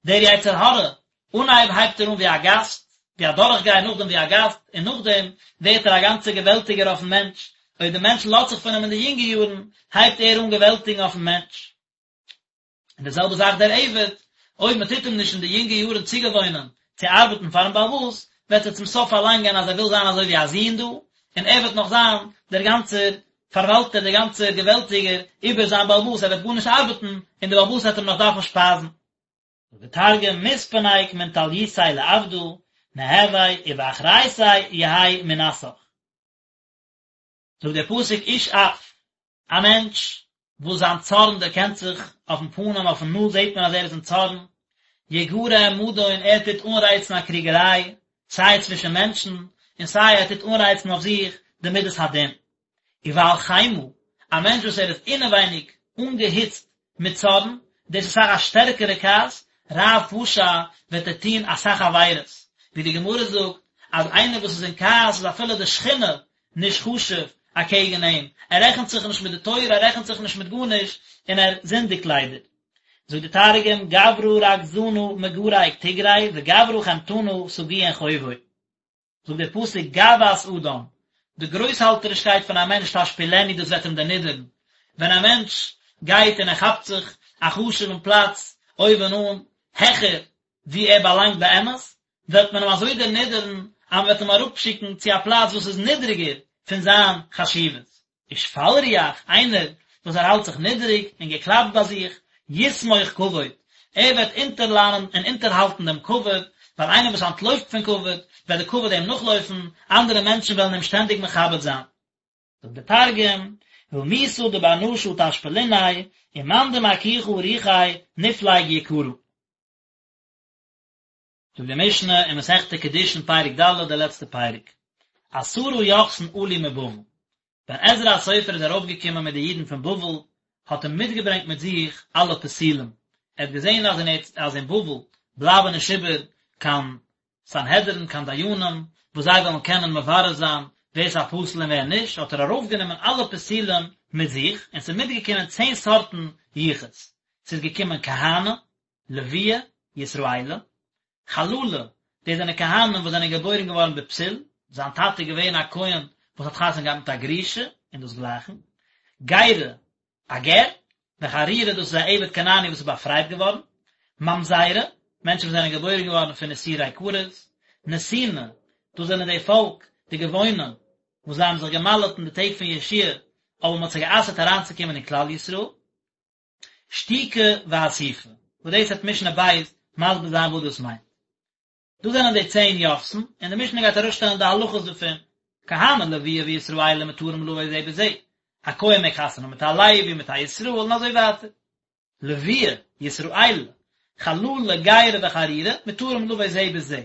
דער יצר הרע, אנהייב הייבט ער אן ווי א גאסט, ווי א דורכגייער, נאכדעם ווי א גאסט, און נאכדעם ווערט ער א גאנצער געוועלטיגער אויפן מענטש, אויב דער מענטש לאזט זיך פון אים אין די יונגע יארן, הייבט ער אן געוועלטיגן אויפן מענטש. און די זעלבע זאך דער עבד, אויב מען טוט אים נישט אין די יונגע יארן צוגעוואוינען צו ארבעטן פארן בעל הבית, וועט ער צום סוף פארלאנגען אז ער וויל זיין אזוי ווי א זוהן דא, און ער וועט נאך זיין דער גאנצער פארוואלטער, דער גאנצער געוועלטיגער איבער זיין בעל הבית, ער וועט גארנישט ארבעטן, און דער בעל הבית וועט אים נאך דארפן שפייזן. זאגט דער תרגום, מתפנק מן טליותיה לעבדא, נהוי ובאחריתיה יהי מנסך. זאגט דער פסוק איש אף, א מענטש וואס זיין צארן דערקענט זיך אויפן פנים, אויפן נאז זעט מען אז ער איז אין צארן, יגרה מדון, ער טוט אנרייצן א קריגעריי, סיי צווישן מענטשן, און סיי ער טוט אנרייצן אויף זיך די מידת הדין. ובעל חמה, א מענטש וואס ער איז אינעווייניג אנגעהיצט מיט צארן, דאס איז אסאך א שטערקערע כעס, רב פשע, וועט ער טון אסאך עבירות, ווי די גמרא זאגט אז איינער וואס איז אין כעס איז אפילו די שכינה נישט חשוב אקעגן אים, ער רעכנט זיך נישט מיט די תורה, ער רעכנט זיך נישט מיט גארנישט, און ער זינדיגט ליידער. זאגט די תרגום, גברא רגזנא מגרק תגרי וגברא חמתנא סגיאין חובוי. זאגט דער פסוק גאוות אדם, די גרויסהאלטערישקייט פון א מענטש תשפילנו דאס וועט אים דערנידערן, ווען א מענטש גייט און ער כאפט זיך א חשוב'ן פלאץ אויבן אן, העכער ווי ער באלאנגט באמת, וועט מען אים אזוי דערנידערן אז מען וועט אים אראפשיקן צו א פלאץ וואס איז נידריגער פון זיין חשיבות. ושפל רוח, איינער וואס ער האלט זיך נידריג און געקלאפט ביי זיך, יסמוך כבוד, ער וועט אונטערלאנען און אונטערהאלטן דעם כבוד, ווייל איינער וואס אנטלויפט פון כבוד, וועט די כבוד אים נאכלויפן, אנדערע מענטשן וועלן אים שטענדיג מכבד זיין. זאגט דער תרגום, רמותא דבר נשא תשפליניה, ומאן דמכיכא רוחיה נפלג יקרא. זאגט די משנה אין מסכת קידושין פרק ד' די לעצטע פרק, עשרה יוחסין עלו מבבל, ווען עזרא הסופר איז ארויפגעקומען מיט די אידן פון בבל האט ער מיטגעברענגט מיט זיך אלע פסולים, ער האט געזען אז אין אז אין בבל בלייבן נישט איבער קיין סנהדרין קיין דיינים וואס זיי וועלן קענען מברר זיין ווער ס'איז א פסול און ווער נישט, האט ער ארויפגענומען אלע פסולים מיט זיך, און ס'איז מיטגעקומען צען סארטן יחוס, ס'איז געקומען כהני, לויי, ישראלי, חללי, דאס זענען כהנים וואס זענען געבוירן געווארן בפסול, זיין טאטע איז געווען א כהן וואס האט חתונה געהאט מיט א גרושה, און דאס גלייכן, גירי, א גר, וחרורי דאס איז א עבד כנעני וואס איז באפרייט געווארן, ממזרי, מענטשן וואס זענען געבוירן געווארן פון איסורי כרת, נתיני, דאס זענען די פאלק, די גבעונים, וואס זיי האבן זיך געמל'עט אין די טעג פון יהושע אבער מען האט זיי גע'אסר'ט אריינצוקומען אין כלל ישראל. שתוקי ואסופי, וואס דאס וועט משנה ב' מסביר זיין וואס דאס מיינט. דאס זענען די צען יוחסין, און די משנה גייט ארויסשטעלן די הלכות דערפון. כהני לויי וישראלי מותרים לבא זה בזה, א כהן מעג חתונה האבן מיט א לוי, מיט א ישראל, און אזוי ווייטער. לויי, ישראלי, חללי, גירי וחרורי, מותרים לבא זה בזה,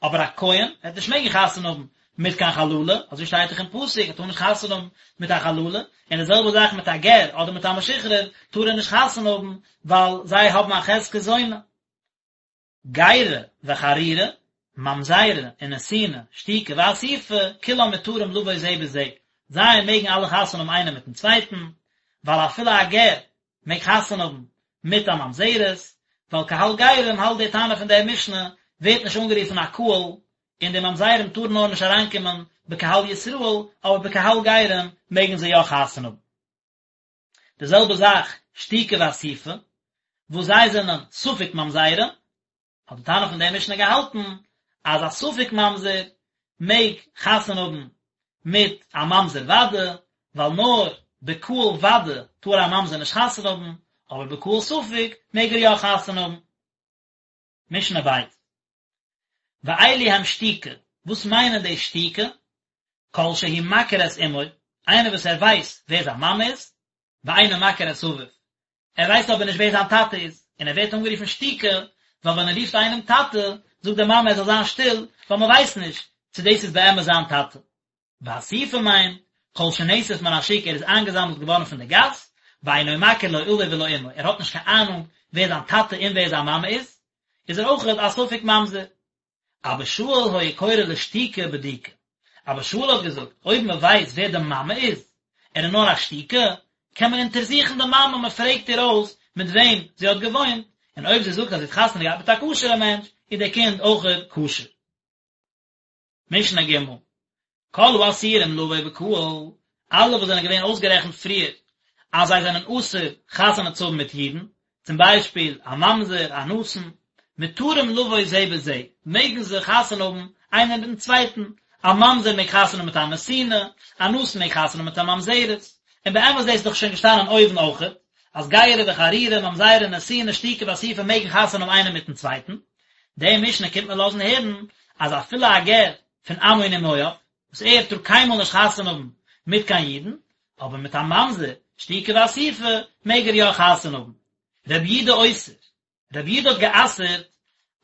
אבער א כהן וועט נישט מעגן חתונה האבן מיט קיין חללה, אזוי שטייט דאך אין פסוק, ער טאר נישט חתונה האבן מיט א חללה, און די זעלבע זאך מיט א גר אדער מיט א משוחרר טאר ער נישט חתונה האבן, ווייל זיי האבן א חזקת זונה. גירי וחרורי, ממזרי ונתיני, שתוקי ואסופי, כולם מותרים לבא זה בזה, זיי מעגן אלע חתונה האבן איינער מיטן צווייטן, ווייל אפילו א גר מעג חתונה האבן מיט א ממזרת, ווייל קהל גרים האלט די תנא פון דער משנה ווערט נישט אנגערופן א קהל, און די ממזרים טארן נאר נישט אריינקומען בקהל ישראל, אבער בקהל גרים מעגן זיי יא חתונה האבן. די זעלבע זאך שתוקי ואסופי, וואס זיי זענען ספק ממזרים, האט די תנא פון דער משנה געהאלטן אז א ספק ממזר מעג חתונה האבן מיט א ממזר ודאי, ווייל נאר בקהל ודאי טאר א ממזר נישט חתונה האבן, אבער בקהל ספק מעג ער יא חתונה האבן. משנה ב'. ואלו הם שתוקי, וואס מיינען די שתוקי? כל שהוא מכיר את אמו, איינער וואס ער ווייסט ווער זיין מאמע איז, ואינו מכיר את אביו, ער ווייסט אבער נישט ווער זיין טאטע איז, און ער ווערט אנגערופן שתוקי, ווייל ווען ער רופט איינעם טאטע, זאגט די מאמע ער זאל זיין שטיל, ווייל מען ווייסט נישט צו דאס איז באמת זיין טאטע. ואסופי מיינט, כל שנאסף מן השוק ער איז איינגעזאמלט געווארן פון די גאס, ואינו מכיר לא אביו ולא אמו, ער האט נישט קיין אהנונג ווער זיין טאטע און ווער זיין מאמע איז, איז ער אויך א ספק ממזר. אבא שאול היה קורא לשתוקי בדוקה. אבא שאול האט געזאגט, אויב מען ווייסט ווער די מאמע איז, ער איז נאר א שתוקי, קען מען אונטערזוכן די מאמע, מען פרעגט איר אויס מיט וועם זי האט געוואוינט, און אויב זי זאגט אז זי האט חתונה געהאט מיט א כשר'ע מענטש, איז דער קינד אויכעט כשר. משנה ג', כל האסורים לבא בקהל, אלע וואס זענען געווען אויסגערעכנט פריער אז זיי זענען אסור חתונה צו האבן מיט אידן, צום ביישפיל א ממזר, א נתין, מותרים לבא זה בזה, מעגן זיי חתונה האבן איינער מיטן צווייטן, א ממזר מעג חתונה האבן מיט א נתינה, א נתין מעג חתונה האבן מיט א ממזרת, און באמת דאס איז דאך שוין געשטאנען אויבן אויכעט, אז גירי וחרורי, ממזרי, נתיני, שתוקי ואסופי מעגן חתונה האבן איינער מיטן צווייטן, די משנה קומט מיר לאזן הערן אז אפילו א גר פון עמון ומואב, וואס ער טאר קיינמאל נישט חתונה האבן מיט קיין אידן, אבער מיט א ממזר, שתוקי ואסופי, מעג ער יא חתונה האבן. רבי יהודה אוסר, רבי יהודה האט גע'אסר'ט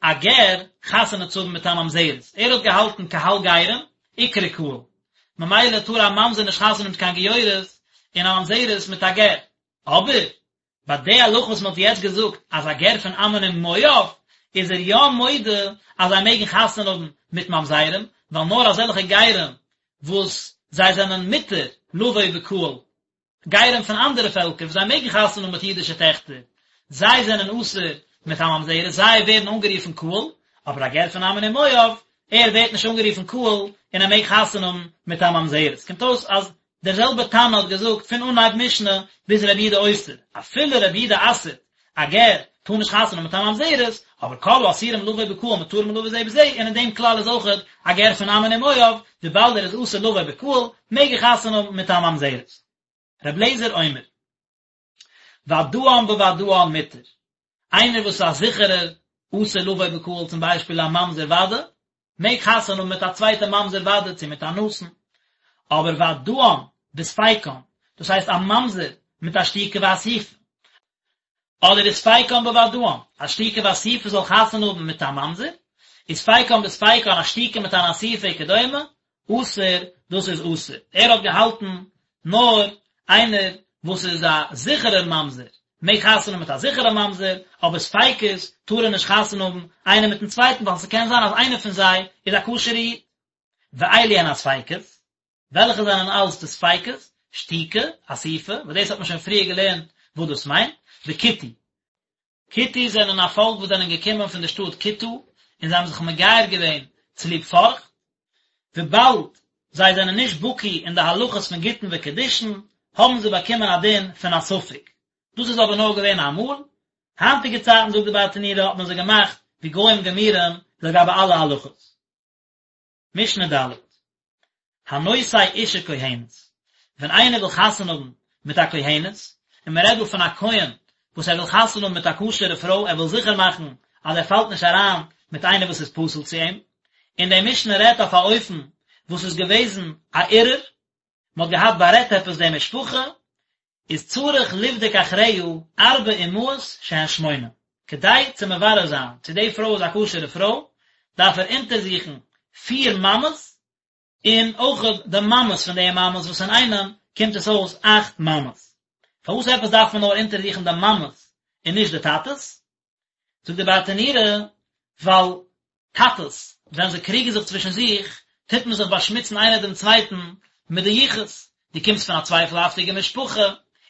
א גר חתונה צו האבן מיט א ממזרת, ער האט געהאלטן קהל גרים, איקרי קהל, ממילא טאר א ממזר נישט חתונה האבן מיט קיין גיורת, און א ממזרת מיט א גר. אבער ביי די הלכה וואס מען האט יעצט געזאגט אז א גר פון עמון און מואב איז ער יא מודה אז זיי מעגן חתונה האבן מיט ממזרים, ווייל נאר אזעלכע גרים וואס זיי זענען מותר לבוא בקהל, גרים פון אנדערע פעלקער וואס זיי מעגן חתונה האבן מיט אידישע טעכטער, זיי זענען אסור מיט א ממזרת, זיי ווערן אנגערופן קהל, אבער א גר פון עמון און מואב, ער ווערט נישט אנגערופן קהל און ער מעג חתונה האבן מיט א ממזרת. קומט אויס אז דער זעלבער תנא האט געזאגט פון אנהייב משנה ביז רבי יהודה אוסר, אפילו רבי יהודה אסר'ט א גר טאר נישט חתונה האבן מיט א ממזרת, אבער כל האסורים לבוא בקהל מותרים לבוא זה בזה, און אין דעם כלל איז אויכעט א גר פון עמון ומואב, וויבאלד ער איז אסור לבוא בקהל, מעג ער חתונה האבן מיט א ממזרת. ר' אליעזר אומר, ודאן בודאן מותר, איינער וואס איז א זיכערער אסור לבוא בקהל צום ביישפיל א ממזר ודאי, מעג חתונה האבן מיט א צווייטע ממזר ודאי צו מיט א נתין, אבער ודאן בספיקן, דאס הייסט א ממזר מיט א שתוקי ואסופי, אדער וספיקן בודאן, א שתוקי ואסופי זאל חתונה האבן מיט א ממזר, וספיקן בספיקן א שתוקי מיט אן אסופי וכדומה, אסור, דאס איז אסור. ער האט געהאלטן נאר איינער וואס איז א זיכערער ממזר מעג חתונה האבן מיט א זיכערע ממזר, אבער ספיקות טאר ער נישט חתונה האבן איינער מיטן צווייטן ווייל ס'קען זיין אז איינער פון זיי איז א כשר'ע איד. ואלו הן הספיקות, וועלכע זענען אלס די ספיקות? שתוקי, אסופי, וואס דאס האט מען שוין פריער געלערנט וואס דאס מיינט, וכותי. כותי זענען א פאלק וואס זענען געקומען פון די שטאט כותא און זיי האבן זיך מגייר געווען צוליב פארכט, וויבאלד זיי זענען נישט בקי אין די הלכות פון גיטין וקידושין, האבן זיי באקומען א דין פון א ספק. דאס איז אבער נאר געווען אמאל, היינטיגע צייטן זאגט די ברטנורא האט מען זיי געמאכט ווי גוים גמורים לגבי אלע הלכות. משנה ד'. הנושא אשה כהנת, ווען איינער וויל חתונה האבן מיט א כהנת, און מען רעדט דא פון א כהן וואס ער וויל חתונה האבן מיט א כשר'ע פרוי, ער וויל זיכער מאכן אז ער פאלט נישט אריין מיט איינער וואס איז פסול צו אים, און די משנה רעדט אויף א אופן וואס איז געוועזן א ערעור, מען האט געהאט בארעדט עפעס די משפחה, איז צריך לבדוק אחריה ארבע אמהות שהן שמונה, כדי צו מברר זיין צו די פרוי איז א כשר'ע פרוי, דארף ער אונטערזוכן פיר מאמעס, און אויך די מאמעס פון די מאמעס וואס אינאיינעם קומט עס אויס אכט מאמעס. פארוואס עפעס דארף מען נאר אונטערזוכן די מאמעס און נישט די טאטעס? זאגט די ברטנורא, ווייל טאטעס ווען זיי קריגן זיך צווישן זיך, טוט מען זיך באשמוצן איינער דעם צווייטן מיט די יחוס, דו קומסט פון א צווייפלהאפטיגע משפחה,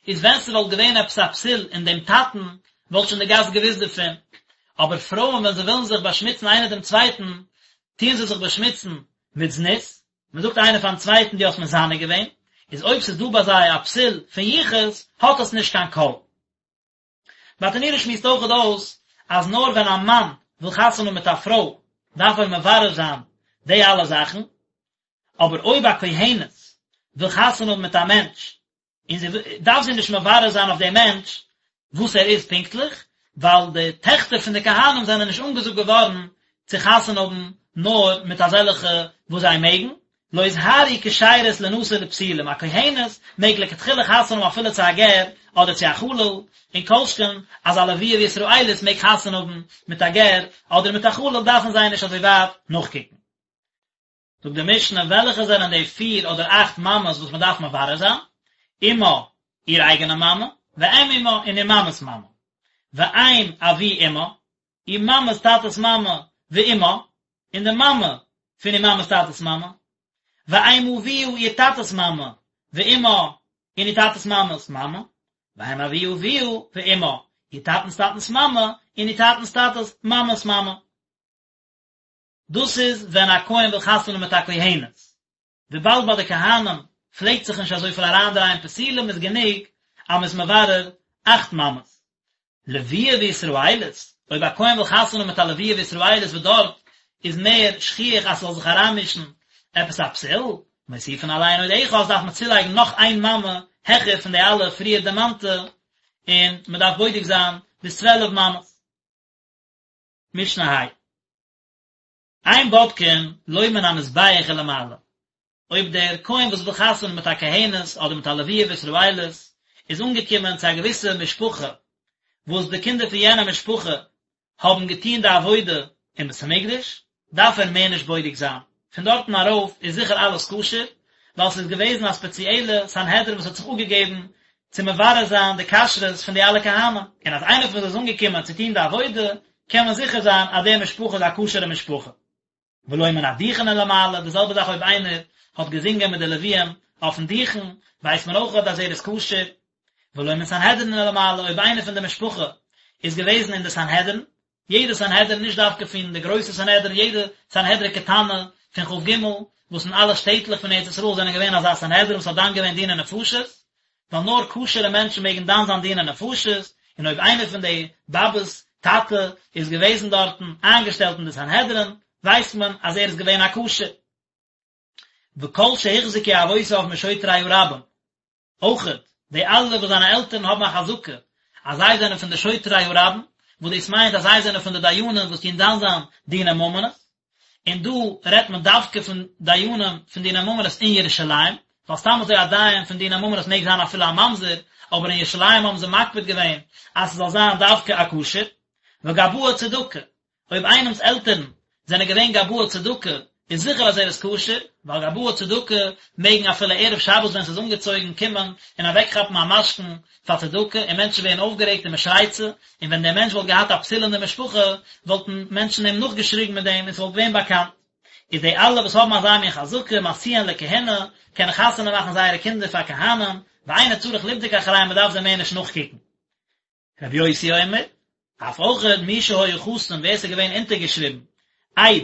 איז ווען ס'וואלט געווען עפעס א פסול אין דעם טאטן, וואלט שוין די גאס געוואוסט דערפון. אבער פרויען ווען זיי ווילן זיך באשמוצן איינער דעם צווייטן, טוען זיי זיך באשמוצן מיט זנות, מען זאגט איינער פארן צווייטן דו האסט מזנה געווען, איז אויב ס'איז דא ביי זיי א פסול פון יחוס, האט עס נישט קיין קול. ברטנורא שמועסט אויכעט אויס אז נאר ווען א מאן וויל חתונה האבן מיט א פרוי דארף ער מברר זיין די אלע זאכן, אבער אויב א כהנת וויל חתונה האבן מיט א מענטש און זי דארף זי נישט מברר זיין אויף דעם מענטש וואס ער איז פונקטליך, ווייל די טעכטער פון די כהנים זענען נישט אנגעזאגט געווארן צו חתונה האבן נאר מיט אזעלכע וואס זיי מעגן, לא הוזהרו כשרות לינשא לפסולים, א כהנת מעג לכתחילה חתונה האבן אפילו צו א גר אדער צו א חלל, און כל שכן אז א לוויה וישראלית מעג חתונה האבן מיט א גר אדער מיט א חלל דארפן זיי נישט אזוי ווייט נאכקוקן. זאגט די משנה וועלכע זענען די פיר אדער אכט מאמעס וואס מען דארף מברר זיין? אמה, איר אייגענע מאמע, ואם אמה, און איר מאמע'ס מאמע, ואם אבי אמה, איר מאמע'ס טאטע'ס מאמע, ואמה, און די מאמע פון איר מאמע'ס טאטע'ס מאמע, ואם אביה איר טאטע'ס מאמע, ואמה, און איר טאטע'ס מאמע'ס מאמע, ואם אבי אביה, ואמה, איר טאטע'נס טאטע'נס מאמע, און איר טאטע'נס טאטע'ס מאמע'ס מאמע. דאס איז ווען א כהן וויל חתונה מיט א כהנת. וויבאלד ביי די כהנים פלעגט זיך נישט אזויפיל אריינדרייען פסולים איז גענוג אז מ'איז מברר אכט מאמעס. לוויה וישראלית, אויב א כהן וויל חתונה מיט א לוויה וישראלית וואס דארט איז מער שכיח אז ס'זאל זיך אריינמישן עפעס א פסול, מוסיפין עליהן עוד אחת דארף מען צולייגן נאך איין מאמע העכער פון די אלע פריער דערמאנטע, און מ'דארף בודק זיין ביז 12 מאמעס. משנה ה'. אין בודקין לא מן המזבח ולמעלה, אויב דער כהן וואס וויל חתונה מיט א כהנת אדער מיט א לוויה וישראלית איז אנגעקומען צו א געוויסע משפחה וואס די קינדער פון יענע משפחה האבן געטון די עבודה אין בית המקדש, דארף ער מער נישט בודק זיין, פון דארטן ארויף איז זיכער אלעס כשר, ווייל ס'איז געוועזן א ספעציעלע סנהדרין וואס האט זיך אפגעגעבן צו מברר זיין די כשרות פון די אלע כהנים, און אז איינער פון זיי איז אנגעקומען צו טון די עבודה, קען מען זיכער זיין אז די משפחה איז א כשר'ע משפחה. ולא מן הדוכן ולמעלה, די זעלבע זאך אויב איינער האט געזינגען מיט די לוויים אויפן דוכן, ווייסט מען אויך אז ער איז כשר. ולא מן סנהדרין ולמעלה, אויב איינער פון די משפחה איז געוועזן אין די סנהדרין, יעדע סנהדרין, נישט דווקא פון די גרויסע סנהדרין, יעדע סנהדרין קטנה פון כ"ג, וואס אין אלע שטעטלעך פון ארץ ישראל זענען געווען אזא סנהדרין וואס האט דן געווען דיני נפשות, ווייל נאר כשר'ע מענטשן מעגן דן זיין דיני נפשות, און אויב איינער פון די באבעס טאטע איז געוועזן דארטן איינגעשטעלט אין די סנהדרין, ווייסט מען אז ער איז געווען א כשר. וכל שהוחזקו אבותיו משוטרי הרבים, אויכעט די אלע וואס זיינע עלטערן האבן א חזקה אז זיי זענען פון די שוטרי הרבים, וואס דאס מיינט אז זיי זענען פון די דיינים וואס טוען דן זיין דיני ממונות, און דא רעדט מען דווקא פון דיינים פון דיני ממונות אין ירושלים, ווייל סתם אזוי א דיין פון דיני ממונות מעג זיין אפילו א ממזר, אבער אין ירושלים האבן זיי מקפיד געווען אז ס'זאל זיין דווקא א כשר. וגבאי צדקה, אויב איינעמס עלטערן זענען געווען גבאי צדקה איז זיכער אז ער איז כשר, ווייל גבאי צדקה מעגן אפילו ערב שבת ווען ס'איז אנגעצויגן קומען און אוועקכאפן א משכון פאר צדקה און מענטשן ווערן אויפגערעגט און מ'שרייט צו, און ווען דער מענטש וואלט געהאט א פסול אין די משפחה וואלטן מענטשן אים נאכגעשריגן מיט דעם און ס'וואלט געווען באקאנט. איז די אלע וואס האבן אזא מין חזקה משיאין לכהונה קענען חתונה מאכן זייערע קינדער פאר כהנים, ואינו צריך לבדוק אחריהם מ'דארף זיי מער נישט נאכקוקן. רבי יוסי אומר, אף אויכעט מי שהיה חתום ווער ס'איז געווען אונטערגעשריבן עד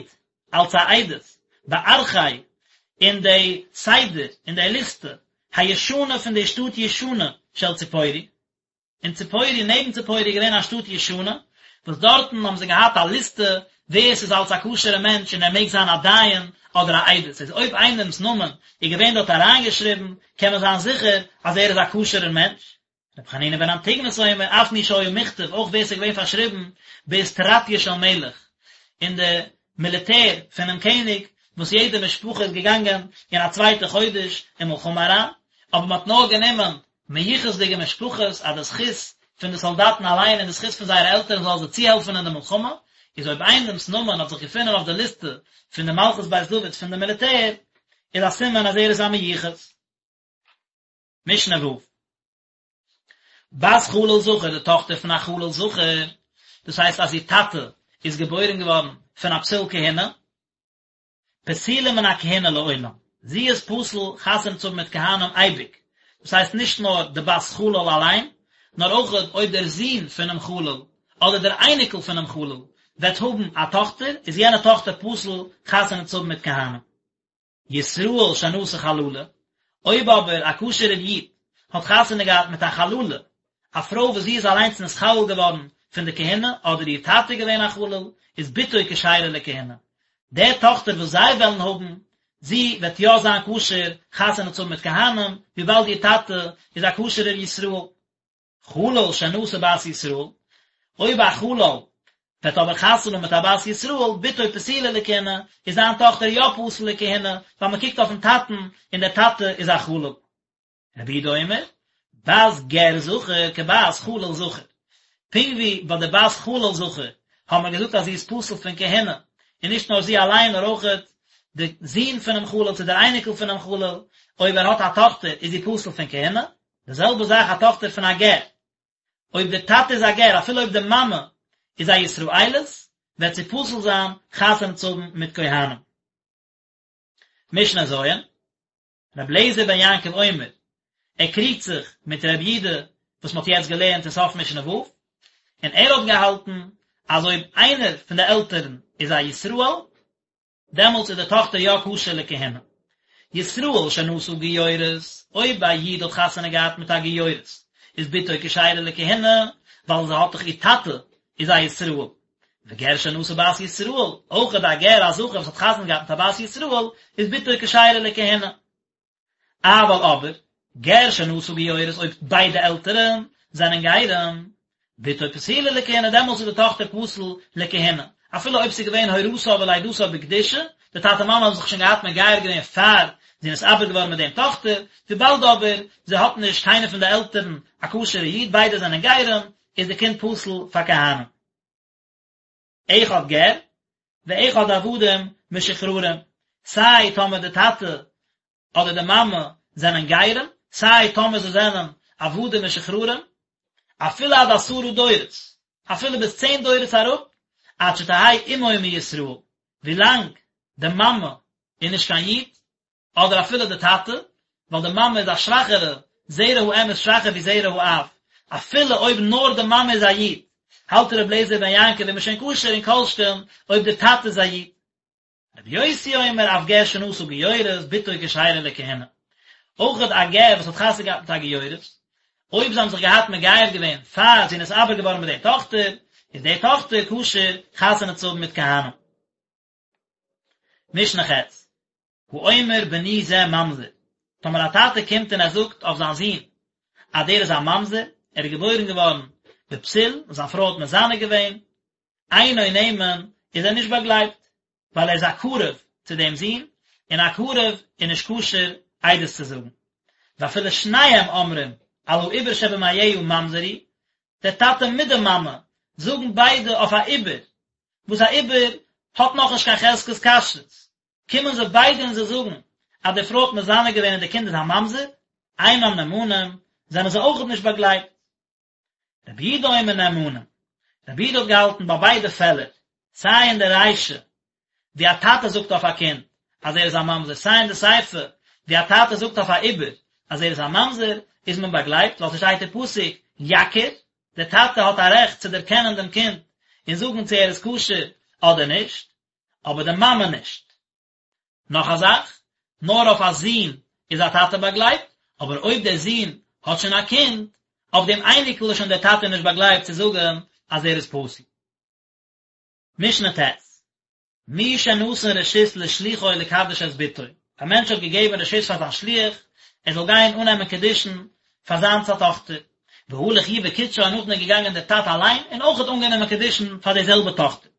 אלס א עדות בארכי אין די סדר אין די ליסטע הישנה פון די שטאט ישנה של ציפורי, אין ציפורי נעבן ציפורי איז געווען א שטאט ישנה וואס דארטן האבן זיי געהאט א ליסטע ווער ס'איז אלס א כשר'ע מענטש און ער מעג זיין א דיין אדער א עדות, איז אויב איינעמ'ס נאמען איז געווען דארט אריינגעשריבן קען מען זיין זיכער אז ער איז א כשר'ער מענטש. רבי חנינא בן אנטיגנוס אומר, אף מי שהיה מוכתב, אויך ווער ס'איז געווען פארשריבן באיסטרטיא של מלך, אין די מיליטער פונעם קעניג, וואס יעדע משפחה איז געגאנגען אין א צווייטע חודש אין מלחמה אריין, אבער מ'האט נאר גענומען מיוחס'דיגע משפחות, אז די זכות פון די סאלדאטן אליין און די זכות פון זייערע עלטערן זאל זיי צוהעלפן אין די מלחמה, איז אויב איינעמ'ס נאמען האט זיך געפונען אויף די ליסטע פון די מלכות בית דוד פון די מיליטער, איז א סימן אז ער איז א מיוחס. משנה ו'. בת חלל זכר, די טאכטער פון א חלל זכר, דאס הייסט אז איר טאטע איז געבוירן געווארן פון א פסול כהונה, פסולה מן הכהונה לעולם, זי איז פסול חתונה צו האבן מיט כהנים אייביג, דאס הייסט נישט נאר די בת חלל אליין, נאר אויך אויב דער זון פונעם חלל אדער דער אייניקל פונעם חלל וועט האבן א טאכטער, איז יענע טאכטער פסול חתונה צו האבן מיט כהנים. ישראל שנשא חללה, אויב אבער א כשר'ער איד האט חתונה געהאט מיט א חללה, א פרוי וואס זי איז אליינס נתחלל געווארן פון די כהונה, אדער איר טאטע איז געווען א חלל, איז בתו כשרה לכהונה. די טאכטער וואס זיי וועלן האבן, זי וועט יא זיין כשר חתונה צו האבן מיט כהנים, וויבאלד איר טאטע איז א כשר'ער ישראל. חלל שנשא בת ישראל, אויב א חלל וועט אבער חתונה האבן מיט א בת ישראל, בתו פסולה לכהונה, איז זיין טאכטער יא פסול לכהונה, ווייל מען קוקט אויפן טאטן און דער טאטע איז א חלל. רבי יהודה אומר, בת גר זכר כבת חלל זכר. פונקט ווי ביי די בת חלל זכר האבן מיר געזאגט אז זי איז פסול פון כהונה, און נישט נאר זי אליין נאר אויכעט די זון פונעם חלל צו דער אייניקל פונעם חלל, אויב ער האט א טאכטער איז זי פסול פון כהונה, די זעלבע זאך א טאכטער פון א גר, אויב דער טאטע איז א גר אפילו אויב די מאמע איז א ישראלית, וועט זי פסול זיין חתונה צו האבן מיט כהנים. משנה ז', רבי אליעזר בן יעקב אומר, ער קריגט זיך מיט רבי יהודה וואס מען האט יעצט געלערנט אין סוף משנה ו', און ער האט געהאלטן אז אויב איינער פון די עלטערן איז א ישראל, דעמאלטס איז די טאכטער יא כשר לכהונה. ישראל שנשא גיורת, אויב א איד האט חתונה געהאט מיט א גיורת, איז בתו כשרה לכהונה, ווייל זי האט דאך איר טאטע איז א ישראל. וגר שנשא בת ישראל, אויך א גר א זכר וואס האט חתונה געהאט מיט א בת ישראל, איז בתו כשרה לכהונה. אבל אבער, גר שנשא גיורת אויב ביידע עלטערן זענען גרים, בתו פסולה לכהונה דעמאלטס איז די טאכטער פסול לכהונה, אפילו אויב ס'איז געווען הורתה ולידתה בקדושה, די טאטע מאמע האבן זיך שוין געהאט מגייר געווען פאר זי איז נתעבר געווארן מיט דעם טאכטער, וויבאלד אבער זי האט נישט קיינער פון די עלטערן א כשר'ע איד, ביידע זענען גרים, איז די קינד פסול פאר כהנים. אחד גר, ואחד עבדים משוחררים, סיי טאמער די טאטע אדער די מאמע זענען גרים, סיי טאמער זיי זענען עבדים משוחררים, אפילו עד עשרה דורות, אפילו ביז צען דורות אראפ, עד שתהא אמו מישראל, ווילאנג די מאמע איז נישט קיין איד, אדער אפילו די טאטע, ווייל די מאמע איז א שוואכערע, זרע האם איז שוואכער ווי זרע האב, אפילו אויב נאר די מאמע איז א איד, האלט ר' אליעזר בן יעקב איז מען שוין כשר און כל שכן אויב די טאטע איז א איד. רבי יוסי אומר אף גר שנשא גיורת בתו כשרה לכהונה. אויכעט א גר וואס האט חתונה געהאט מיט א גיורת, אויב זיי האבן זיך געהאט מגייר געווען פאר זי איז נתעבר געווארן מיט די טאכטער, איז די טאכטער כשר חתונה צו האבן מיט כהנים. משנה ח', האומר בני זה ממזר, טאמער א טאטע קומט און ער זאגט אויף זיין זון אז דער איז א ממזר, ער איז געבוירן געווארן בפסול, זיין פרוי האט מזנה געווען, אינו נאמן, איז ער נישט באגלייבט, ווייל ער איז א קרוב צו דעם זון, און א קרוב איז נישט כשר עדות צו זאגן. ואפילו שניהם אומרים על העובר שבמעיה ממזר הוא, דער טאטע מיט די מאמע זאגן ביידע אויף א עובר, וואס א עובר האט נאכנישט קיין חזקת כשרות, קומען זיי ביידע און זיי זאגן אז די פרוי האט מזנה געווען און די קינד איז א ממזר, אינם נאמנים, זענען זיי אויכעט נישט באגלייבט. רבי יהודה אומר נאמנים, רבי יהודה האט געהאלטן ביי ביידע פעלער, סיי אין די רישא ווי א טאטע זאגט אויף א קינד אז ער איז א ממזר, סיי אין די סיפא ווי א טאטע זאגט אויף א עובר אז ער איז א ממזר, איז מען באגלייבט, ווייל ס'שטייט אין פסוק יכיר, דער טאטע האט א רעכט צו דערקענען דעם קינד און זאגן צו ער איז כשר אדער נישט, אבער די מאמע נישט. נאך א זאך, נאר אויף א זון איז א טאטע באגלייבט, אבער אויב דער זון האט שוין א קינד, אויף דעם אייניקל איז שוין דער טאטע נישט באגלייבט צו זאגן אז ער איז פסול. משנה ט', מי שנתן רשות לשלוחו לקדש את בתו, א מענטש האט געגעבן רשות פאר זיין שליח ער זאל גיין אננעמען קידושין פאר זיינס א טאכטער, והלך הוא וקידשה און נאכדעם איז געגאנגען דער טאטע אליין און אויך האט אנגענומען קידושין פאר די זעלבע טאכטער.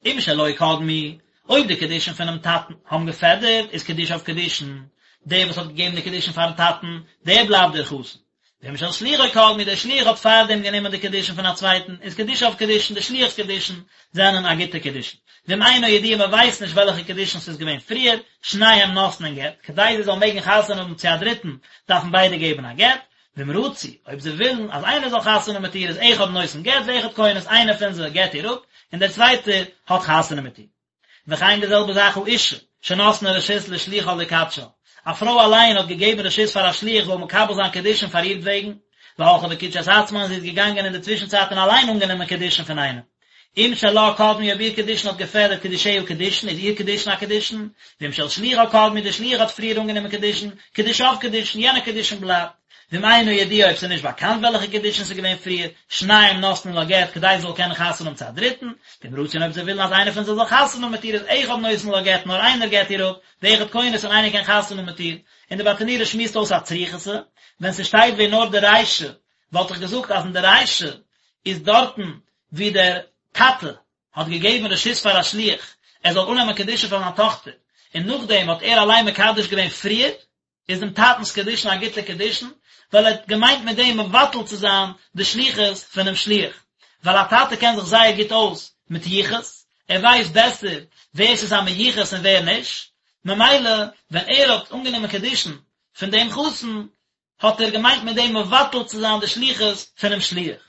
אם שלו קדמו, אויב די קידושין פונעם טאטן האבן געפעדערט, איז קידושיו קידושין, דער וואס האט געגעבן די קידושין פארן טאטן, דער בלייבט דער חתן. ואם של שלוחו קדמו, דער שליח האט פארדעם גענומען די קידושין פון א צווייטן, איז קידושיו קידושין, די שליח'ס קידושין זענען א גוטע קידושין. ואם אינו ידוע מען ווייסט נישט וועלכע קידושין ס'איז געווען פריער, שניהם נותנין גט, כדי זיי זאלן מעגן חתונה האבן צו א דריטן, דארפן ביידע געבן א גט, ואם רצו, אויב זיי ווילן אז איינער זאל חתונה האבן מיט איר איז אחד נותן גט ואחד כונס, איינער פון זיי גט איר אפ, און דער צווייטער האט חתונה מיט איר. וכן די זעלבע זאך האשה, שנתנה רשות לשלוחה לקדשה, א פרוי אליין האט געגעבן רשות פאר א שליח זאל מקבל זיין קידושין פאר אירטוועגן, והלכה וקידשה את עצמה און זי איז געגאנגען אין די צווישנצייט און אליין אנגענומען קידושין פון איינעם. אם שלה קדמו אויב איר קידושין האט געפעדערט קידושיה קידושין איז איר קידושין א קידושין, ואם של שלוחה קדמו די שליח האט פריער אנגענומען קידושין, קידושיו קידושין יענע קידושין בלייבט, ואם אינו ידוע אויב ס'איז נישט באקאנט וועלכע קידושין ס'איז געווען פריער, שניהם נותנין לה גט כדי זי זאל קענען חתונה האבן צו א דריטן, ואם רצו און אויב זיי ווילן אז איינער פון זיי זאל חתונה האבן מיט איר איז אחד נותן לה גט נאר איינער גט איר אפ, ואחד כונס און איינער קען חתונה האבן מיט איר, און די ברטנורא שמועסט אויס א צריכותא, ווען ס'שטייט ווען נאר די רישא וואלט איך געזאגט אז אין די רישא איז דארטן ווי דער טאטע האט געגעבן רשות פאר א שליח ער זאל אננעמען קידושין פאר זיין טאכטער, און נאכדעם האט ער אליין מקדש געווען פריער, איז דעם טאטנ'ס קידושין א גוטע קידושין, ווייל ער האט געמיינט מיט דעם מבטל צו זיין די שליחות פונעם שליח, ווייל א טאטע קען זיך זייער גוט אויס מיט יחוס, ער ווייסט בעסער ווער ס'איז א מיוחס און ווער נישט, ממילא ווען ער האט אנגענומען קידושין פון דעם חתן, האט ער געמיינט מיט דעם מבטל צו זיין די שליחות פונעם שליח.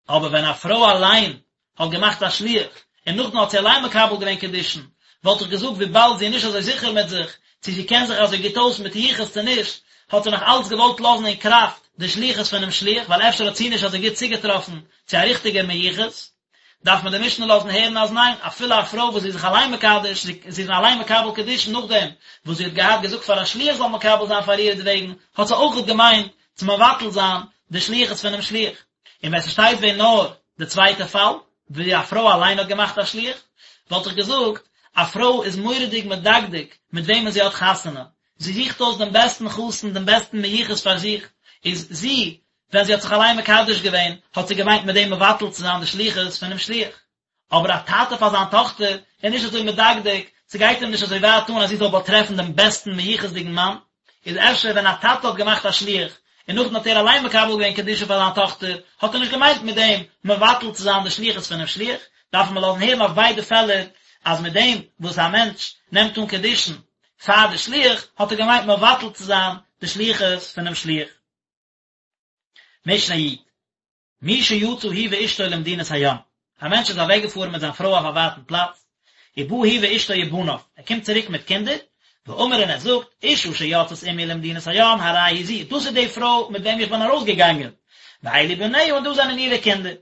אבער ווען א פרוי אליין האט געמאכט א שליח, און נאכדעם האט זי אליין מקבל געווען קידושין, וואלט איך געזאגט וויבאלד זי איז נישט אזוי זיכער מיט זיך, צו זי קען זיך אזוי גוט אויס מיט יחוס צו נישט, האט זי נאך אלץ געוואלט לאזן אין קראפט די שליחות פונעם שליח, ווייל אפשר האט זי נישט אזוי גוט צוגעטראפן צו א ריכטיגער מיוחס. דארף מען די משנה לאזן הערן אז ניין, אפילו א פרוי וואס זי איז זיך אליין מקדש, זי איז אליין מקבל קידושין נאכדעם וואס זי האט געהאט געזאגט פאר א שליח זאל מקבל זיין פאר אירעטוועגן, האט זי אויכעט געמיינט צו מבטל זיין די שליחות פונעם שליח. און ווען ס'שטייט ווען נאר די צווייטע פאל, ווי א פרוי אליין האט געמאכט א שליח, וואלט איך געזאגט, א פרוי איז מורא'דיג מדקדק מיט וועמען זי האט חתונה, זי זוכט אויס דעם בעסטן חתן, דעם בעסטן מיוחס פאר זיך, איז זי, ווען זי האט זיך אליין מקדש געווען, האט זי געמיינט מיט דעם מבטל צו זיין די שליחות פונעם שליח. אבער א טאטע פאר זיין טאכטער איז נישט אזוי מדקדק, ס'גייט אים נישט אזוי ווייט אן אז זי זאל באטרעפן דעם בעסטן מיוחס'דיגן מאן, איז אפשר ווען א טאטע האט געמאכט א שליח, און נאכדעם האט ער אליין מקבל געווען קידושין פאר זיין טאכטער, האט ער נישט געמיינט מיט דעם מבטל צו זיין די שליחות פונעם שליח, דארף מען לאזן הערן אויף ביידע פעלער אז מיט דעם וואס א מענטש נעמט אן קידושין פאר די שליח, האט ער געמיינט מבטל צו זיין די שליחות פונעם שליח. משנה י'. מי שיצא הוא ואשתו למדינת הים, א מענטש איז אוועקגעפארן מיט זיין פרוי אויף א ווייטן פלאץ, ובא הוא ואשתו ובניו, ער קומט צוריק מיט קינדער, ואמר און ער זאגט, אשה שיצאת עמי למדינת הים הרי היא זו, דאס איז די פרוי מיט וועם איך בין ארויסגעגאנגען, ואלו בניה און דאס זענען אירע קינדער.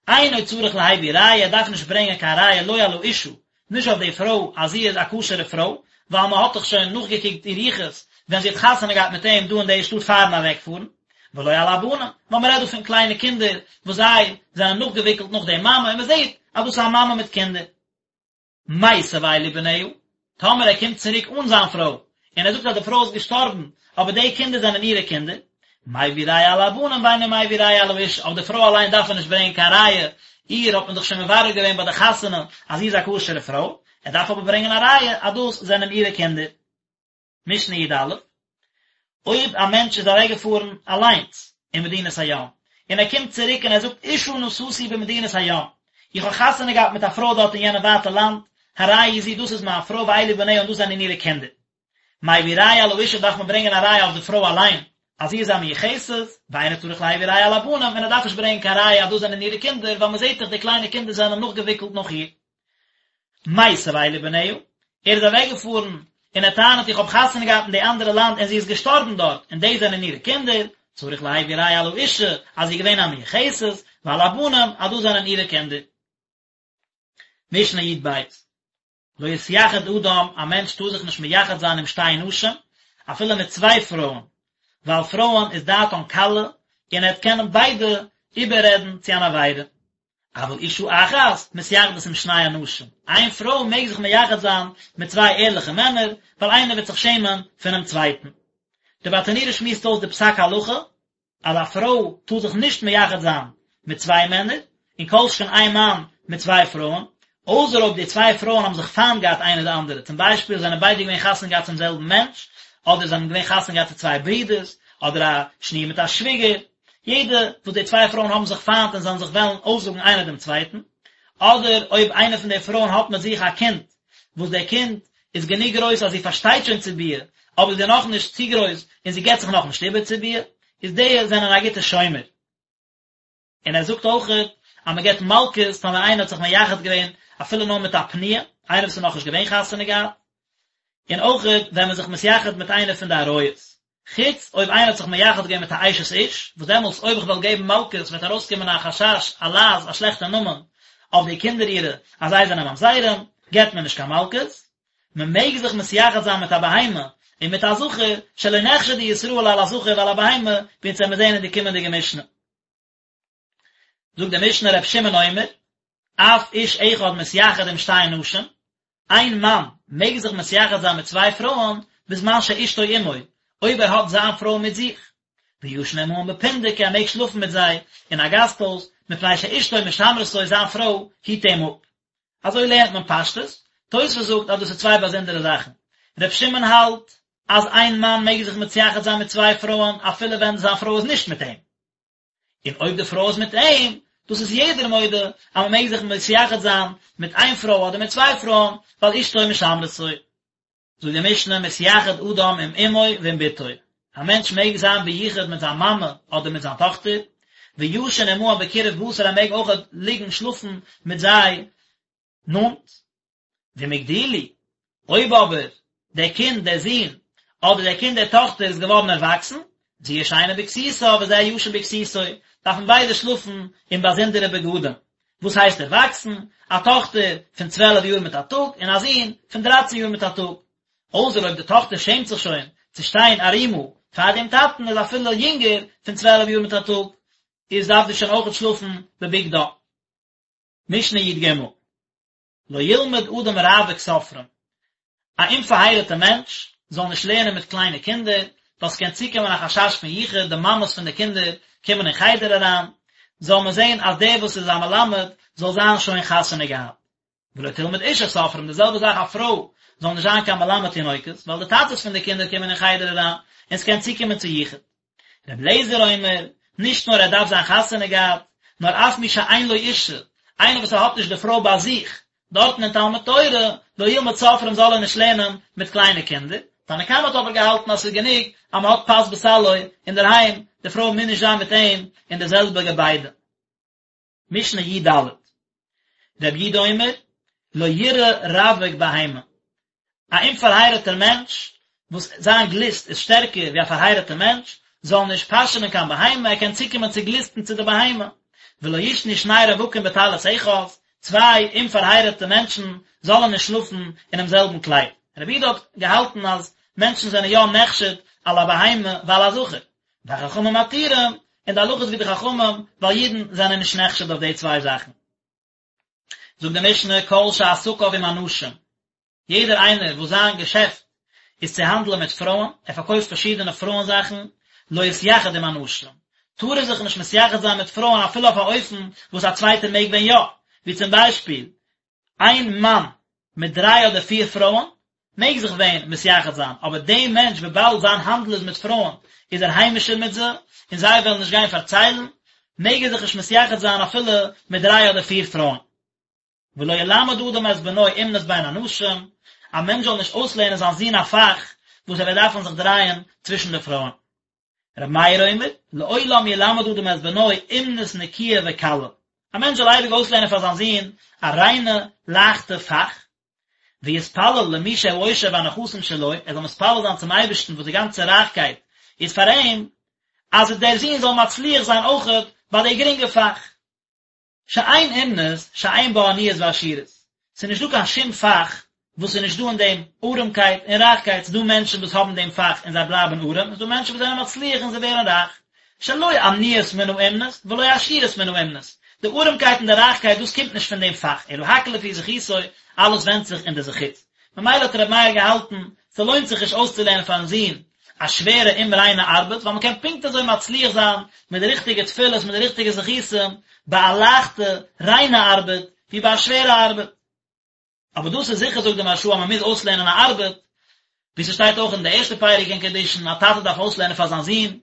אינו צריך להביא ראיה, ער דארף נישט ברענגען קיין ראיה לא על האשה, נישט אויף די פרוי אז זי איז א כשר'ע פרוי, ווייל מען האט דאך שוין נאכגעקוקט איר יחוס ווען זי האט חתונה געהאט מיט אים דא אין די שטאט פארן אוועקפארן. ולא על הבנים, ווייל מען רעדט דא פון קליינע קינדער וואס זיי זענען נאכגעוויקלט נאך די מאמע און מען זעט אז דאס איז א מאמע מיט קינדער. מתה ואלו בניה, טאמער ער קומט צוריק אן זיין פרוי, און ער זאגט אז די פרוי איז געשטארבן, אבער די קינדער זענען אירע קינדער, מביא ראיה על הבנים ואינו מביא ראיה על האשה, אויף די פרוי אליין דארף ער נישט ברענגען קיין ראיה, איר האט מען דאך שוין מברר געווען ביי די חתונה אז זי איז א כשר'ע פרוי, ער דארף אבער ברענגען א ראיה אז דאס זענען אירע קינדער. משנה י"א, אויב א מענטש איז אוועקגעפארן אליינס אין מדינת הים, און ער קומט צוריק און ער זאגט אשה נשאתי במדינת הים, איך האב חתונה געהאט מיט א פרוי דארט אין יענע ווייטע לאנד, הרי היא זו דאס איז מיין פרוי ואלו בניה און דאס זענען אירע קינדער. מביא ראיה על האשה דארף מען ברענגען א ראיה אויף די פרוי אליין אז זי איז א מיוחסת, ואינו צריך להביא ראיה על הבנים, און ער דארף נישט ברענגען קיין ראיה אז דאס זענען אירע קינדער, ווייל מען זעט דאך די קליינע קינדער זענען נאכגעוויקלט נאך איר. מתה ואלו בניה, ער איז אוועקגעפארן און ער טענה'ט איך האב חתונה געהאט אין די אנדערע לאנד און זי איז געשטארבן דארט און דאס זענען אירע קינדער, צריך להביא ראיה על האשה אז זי איז געווען א מיוחסת, ועל הבנים אז דאס זענען אירע קינדער. משנה י"ב, לא יתייחד אדם, א מענטש טאר זיך נישט מייחד זיין עם שתי נשים, אפילו מיט צוויי פרויען, ווייל פרויען איז דעתן קלה, און ער וועט קענען ביידע איבעררעדן צו אן עבירה. אבל אשה אחת מתייחדת עם שני אנשים, איין פרוי מעג זיך מייחד זיין מיט צוויי ערליכע מענער, ווייל איינער וועט זיך שעמען פונעם צווייטן. די ברטנורא שמועסט אויס די פסק הלכה, אז א פרוי טאר זיך נישט מייחד זיין מיט צוויי מענער, און כל שכן איין מאן מיט צוויי פרויען, אויסער אויב די צוויי פרויען האבן זיך פיינט געהאט איינע די אנדערע, צום ביישפיל זענען ביידע געווען חתונה געהאט צום זעלבן מענטש, אדער זענען געווען חתונה געהאט צו צוויי ברידערס, אדער א שניר מיט א שוויגער, יעדע וואס די צוויי פרויען האבן זיך פיינט און זאלן זיך וועלן אויסזאגן איינער דעם צווייטן, אדער אויב איינע פון די פרויען האט מיט זיך א קינד, וואס דער קינד איז גענוג גרויס אז זי פארשטייט שוין צו ביאה, אבער זי איז נאכנישט צו גרויס און זי געבט זיך נאכנישט איבער צו ביאה, איז די זענען א גוטע שומר. און ער זאגט אויכעט אז מען געבט מלקות טאמער איינער האט זיך מייחד געווען אפילו נאר מיט א פנויה, איינער וואס איז נאכנישט געווען חתונה געהאט, און אויכעט ווען מען איז זיך מתייחד מיט איינער פון די עריות, חוץ אויב איינער האט זיך מייחד געווען מיט א אשת איש, וואס דעמאלטס אויב איך וועל געבן מלקות וועט ארויסקומען א חשש, א לעז, א שלעכטע נאמען אויף די קינדער אירע אז זיי זענען ממזרים, געבט מען נישט קיין מלקות. מען מעג זיך מתייחד זיין מיט א בהמה און מיט א זכר, שלא נחשדו ישראל על הזכר ועל הבהמה, ווי אונז וועמיר זען אין די קומענדיגע משנה. זאגט די משנה ר' שמעון אומר, אף איש אחד מתייחד עם שתי נשים, איין מאן מעג זיך מתייחד זיין מיט צוויי פרויען בזמן שאשתו עמו, אויב ער האט זיין פרוי מיט זיך, וישן עמהן בפונדק ער מעג שלאפן מיט זיי אין א גאסט הויז, מפני שאשתו משמרתו זיין פרוי היט אים אפ. אזוי לערנט מען פשטות, תוספות זאגט אז דאס איז צוויי באזונדערע זאכן, ר' שמעון האלט אז איין מאן מעג זיך מתייחד זיין מיט צוויי פרויען אפילו ווען זיין פרוי איז נישט מיט אים, און אויב די פרוי איז מיט אים, דאס איז יעדער מודה אז מען מעג זיך מתייחד זיין מיט איין פרוי אדער מיט צוויי פרויען, ווייל אשתו משמרתו. זאגט די משנה, מתייחד אדם עם אמו ועם בתו, א מענטש מעג זיין ביחוד מיט זיין מאמע אדער מיט זיין טאכטער, וישן עמהם בקירוב בשר ער מעג אויך ליגן שלאפן מיט זיי נאנט. ואם הגדילו, אויב אבער דער קינד, דער זון, אדער דער קינד, דער טאכטער, איז געווארן ערוואקסן, זו ישנה בכסותה וזה ישן בכסותו, דארפן ביידע שלאפן אין באזונדערע בגדים. וואס הייסט ערוואקסן? א טאכטער פון צוועלף יאר מיט א טאג, און א זון פון דרייצן יאר מיט א טאג. אויסער אויב די טאכטער שעמט זיך שוין צו שטיין ערומה פאר דעם טאטן, איז אפילו יונגער פון צוועלף יאר מיט א טאג, איז דארף זי שוין אויכעט שלאפן בבגדה. משנה י"ג. לא ילמד אדם רווק סופרים, א אומפארהייראטע מענטש זאל נישט לערנען מיט קליינע קינדער, ווייל ס'קען צוקומען א חשש פון יחוד, די מאמעס פון די קינדער קומען אין חדר אריין, זאל מען זען אז דער וואס איז א מלמד זאל זיין שוין חתונה געהאט. ולא תלמד אשה סופרים, די זעלבע זאך א פרוי זאל נישט זיין קיין מלמד תינוקות, ווייל די טאטעס פון די קינדער קומען אין חדר אריין, און ס'קען צוקומען צו יחוד. רבי אליעזר אומר, נישט נאר ער דארף זיין חתונה געהאט, נאר אף מי שאין לו אישה, איינער וואס ער האט נישט די פרוי ביי זיך, דארטן אין תלמוד תורה, לא ילמד סופרים זאל ער נישט לערנען מיט קליינע קינדער, תנא קמא האט אבער געהאלטן אז ס'איז גענוג אז מען האט פת בסלו אינדערהיים, די פרוי מוז נישט זיין מיט אים אין די זעלבע געביידע. משנה י"ד, רבי יהודה אומר, לא ירעה רווק בהמה, א אומפארהייראטער מענטש וואס זיין גליסט איז שטערקער ווי א פארהייראטער מענטש, זאל נישט פאשענען קיין בהמה, ער קען צוקומען צו גליסטן צו די בהמה. ולא יישנו שני רווקים בטלית אחת, צוויי אומפארהייראטע מענטשן זאלן נישט שלאפן אינעם זעלבן קלייד. רבי יהודה האט געהאלטן אז מענטשן זענען יא נחשד על הבהמה ועל הזכר. והחכמים מתירים, און די הלכה איז ווי די חכמים, ווייל אידן זענען נישט נחשד אויף די צוויי זאכן. זאגט די משנה כל שעסקיו עם הנשים, יעדער איינער וואס זיין געשעפט איז צו האנדלען מיט פרויען, ער פארקויפט פארשידענע פרויען זאכן, לא יתייחד עם הנשים, טאר ער זיך נישט מתייחד זיין מיט פרויען אפילו אויף א אופן וואס א צווייטער מעג ווען יא, ווי צום ביישפיל, איין מאן מיט דריי אדער פיר פרויען מעג זיך ווען מתייחד זיין, אבער דעם מענטש וויבאלד זיין האנדל איז מיט פרויען איז ער היימישער מיט זיי, און זיי וועלן נישט גיין פארציילן, מעג ער זיך נישט מתייחד זיין אפילו מיט דריי אדער פיר פרויען. ולא ילמד אדם את בנו אומנות בין הנשים, א מענטש זאל נישט אויסלערנען זיין זון א פאך וואס ער וועט דארפן זיך דרייען צווישן די פרויען. רבי מאיר אומר, לעולם ילמד אדם את בנו אומנות נקיה וקלה, א מענטש זאל אייביג אויסלערנען פאר זיין זון א ריינע, לייכטע פאך, ויתפלל למי שהעושר והנכסים שלו, ער זאל מתפלל זיין צום אייבערשטן וואס די גאנצע רייכקייט איז פאר אים, אז דער זון זאל מצליח זיין אויכעט ביי די גרינגע פאך. שאין אומנות שאין בה עניות ועשירות, ס'איז נישט דא קיין שום פאך וואס איז נישט דא אין דעם ארעמקייט און רייכקייט, ס'איז דא מענטשן וואס האבן דעם פאך און זיי בלייבן ארעם, און ס'איז דא מענטשן וואס זענען מצליח און זיי ווערן רייך, שלא עניות מן האומנות ולא עשירות מן האומנות, די ארעמקייט און די רייכקייט דאס קומט נישט פון דעם פאך, אלא הכל לפי זכותו, אלעס ווענדט זיך אין די זכות. ממילא האט רבי מאיר געהאלטן, ס'לוינט זיך נישט אויסצולערנען פארן זון א שווערע אומריינע ארבעט, ווייל מ'קען פונקט אזוי מצליח זיין מיט די ריכטיגע תפילות מיט די ריכטיגע זכותים ביי א לייכטע ריינע ארבעט ווי ביי א שווערע ארבעט. אבער דאס איז זיכער זאגט די מהרש"א אז מ'מוז אויסלערנען א ארבעט, ווי ס'שטייט אויך אין די ערשטע פרק אין קידושין, א טאטע דארף אויסלערנען פאר זיין זון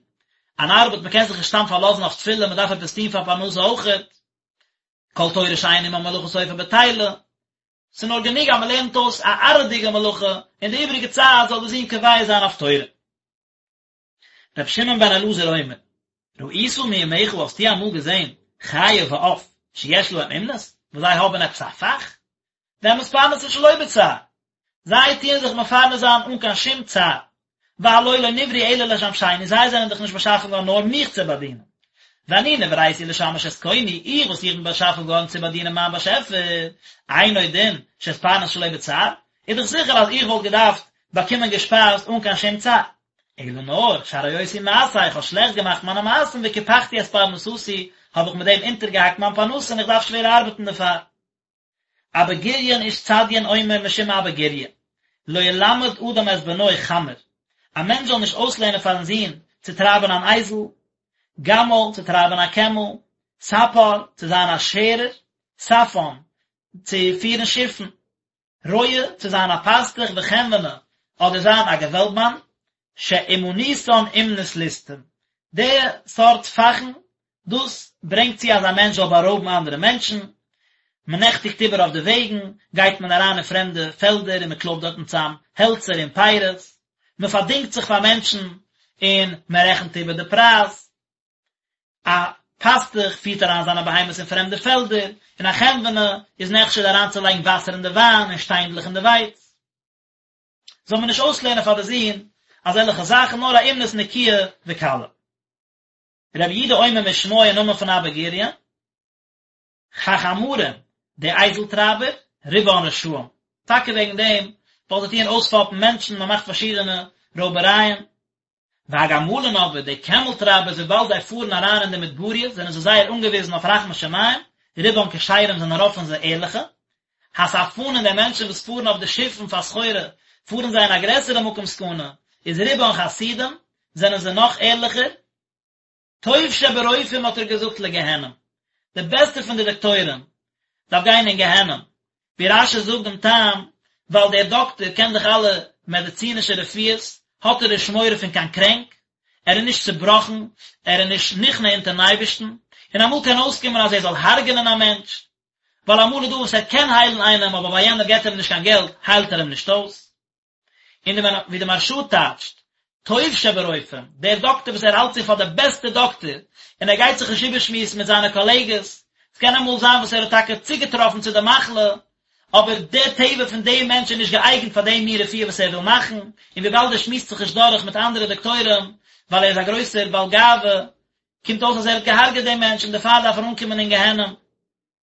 אן ארבעט, מ'קען זיך נישט סתם פארלאזן אויף תפילה, מ'דארף עפעס טון פאר פרנסה אויכעט, כל תורה שאין עמה מלאכה סופה בטילה. ס'איז נאר גענוג אז מ'לערנט אויס א עראי'דיגע מלאכה, און די איבעריגע צייט זאל די זון קובע זיין אויף תורה. רבי שמעון בן אלעזר אומר, ראית מימיך האסטו אמאל געזען חיה ועוף שיש להם אומנות, וואס זיי האבן עפעס א פאך? והם מתפרנסין שלא בצער, זיי טוען זיך מפרנס זיין אן קיין שום צער, והלא לא נבראו אלא לשמשני, זיי זענען דאך נישט באשאפן געווארן נאר מיך צו באדינען. ואני נבראתי לשמש את קוני, איך וואס איך בין באשאפן געווארן צו באדינען מיין באשעפער, אינו דין שאתפרנס שלא בצער, איז דאך זיכער אז איך וואלט געדארפט באקומען געשפייזט אן קיין שום צער. אלא נאר, שהרעותי מעשיי, איך האב שלעכט געמאכט מיינע מעשים וקיפחתי את פרנסתי, האב איך מיט דעם אונטערגעהאקט מיין פרנסה און איך דארף שווער ארבעטן דערפאר. אבא גוריון איש צדיין אומר משום אבא גוריא, לא ילמד אדם את בנו חמר, א מענטש זאל נישט אויסלערנען פארן זון צו טרייבען אן אייזל, גמל, צו טרייבען א קעמל, ספר, צו זיין א שערער, ספן, צו פירן שיפן, רועה, צו זיין א פאסטוך וחנווני, אדער זיין א געוועלבמאן, שאומנותן אומנות ליסטים, די סארט פאכן, דאס ברענגט צו אז א מענטש זאל בארויבן אנדערע מענטשן, מען נעכטיגט איבער אויף די וועגן, גייט מען אריין אין פרעמדע פעלדער און מען קלויבט דארטן צאם העלצער און פירות, מען פארדינגט זיך פאר מענטשן און מען רעכנט איבער די פרייז. א פאסטוך פירט אריין זיינע בהמות אין פרעמדע פעלדער, און א חנווני איז נחשד אריינצולייגן וואסער אין די וויין און שטיינדלעך אין די ווייץ. זאל מען נישט אויסלערנען פאר די זון אזעלכע זאכן, נאר א אומנות נקיה וקלה. רבי יהודה אומר משמו אין נאמען פון אבא גוריון, החמרים, די אייזל טרייבער, רובן רשעים, טאקע וועגן דעם, ווייל זיי טוען אויספאפן מענטשן, מען מאכט פארשידענע רויבערייען. והגמלין אבער, די קעמל טרייבערס, וויבאלד זיי פארן אריין אין די מדבריות, זענען זיי זייער אנגעוויזן אויף רחמי שמים, רובן כשרים זענען רוב פון זיי ערליכע. הספנין די מענטשן וואס פארן אויף די שיפן פאר סחורה, פארן זיי אין א גרעסערע מקום סכנה, איז רובן חסידים, זענען זיי נאך ערליכער. טוב שברופאים האט ער געזאגט לגיהנום, די בעסטע פון די דאקטוירים דארף גיין אין גיהנום, ווי רש"י זאגט דעם טעם, ווייל דער דאקטער קען דאך אלע מעדיצינישע רפואות, האט ער נישט מורא פון קיין קרענק, ער איז נישט צובראכן, ער איז נישט נכנע אונטערן אייבערשטן, און אמאל קען אויסקומען אז ער זאל הרג'נען א מענטש, ווייל אמאל איז דא וואס ער קען היילן איינעם אבער ווייל יענער געבט אים נישט קיין געלט היילט ער אים נישט אויס. און די ווי די מהרש"א טייטשט, טוב שברופאים, דער דאקטער וואס ער האלט זיך פאר דער בעסטער דאקטער, און ער גייט זיך נישט איבערשמועסן מיט זיינע קאלעגעס, עס קען אמאל זיין וואס ער האט טאקע צוגעטראפן צו די מחלה, אבער דער טבע פון דעם מענטש איז נישט געאייגנט פאר דעם מין רפואה וואס ער וויל מאכן, און וויבאלד ער שמועסט זיך נישט דורך מיט אנדערע דאקטוירים, ווייל ער איז א גרויסער בעל גאווה, קומט אויס אז ער האט געהארגעט דעם מענטש און דערפאר דארף ער אנקומען אין גיהנום.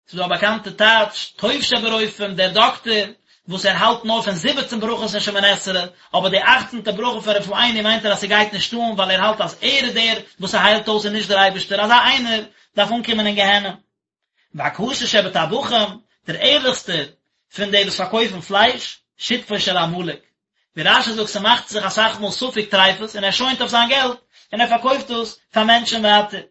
ס'איז דא א באקאנטע טייטש, טוב שברופאים, דער דאקטער. וואס ער האלט נאר פון זיבעצן ברכות אין שמונה עשרה, אבער די אכצנטע ברכה פון רפאנו מיינט ער אז ס'גייט נישט אן ווייל ער האלט אז ער איז דער וואס ס'היילט אויס און נישט דער אייבערשטער, אזא איינער דארף אנקומען אין גיהנום. והכשר שבטבחים, דער ערליכסטער פון די וואס פארקויפן פלייש, שותפו של עמלק. ווי רש"י זאגט ס'מאכט זיך אסאך מאל ספק טריפות און ער שוינט אויף זיין געלט און ער פארקויפט דאס פאר מענטשן ווייטער.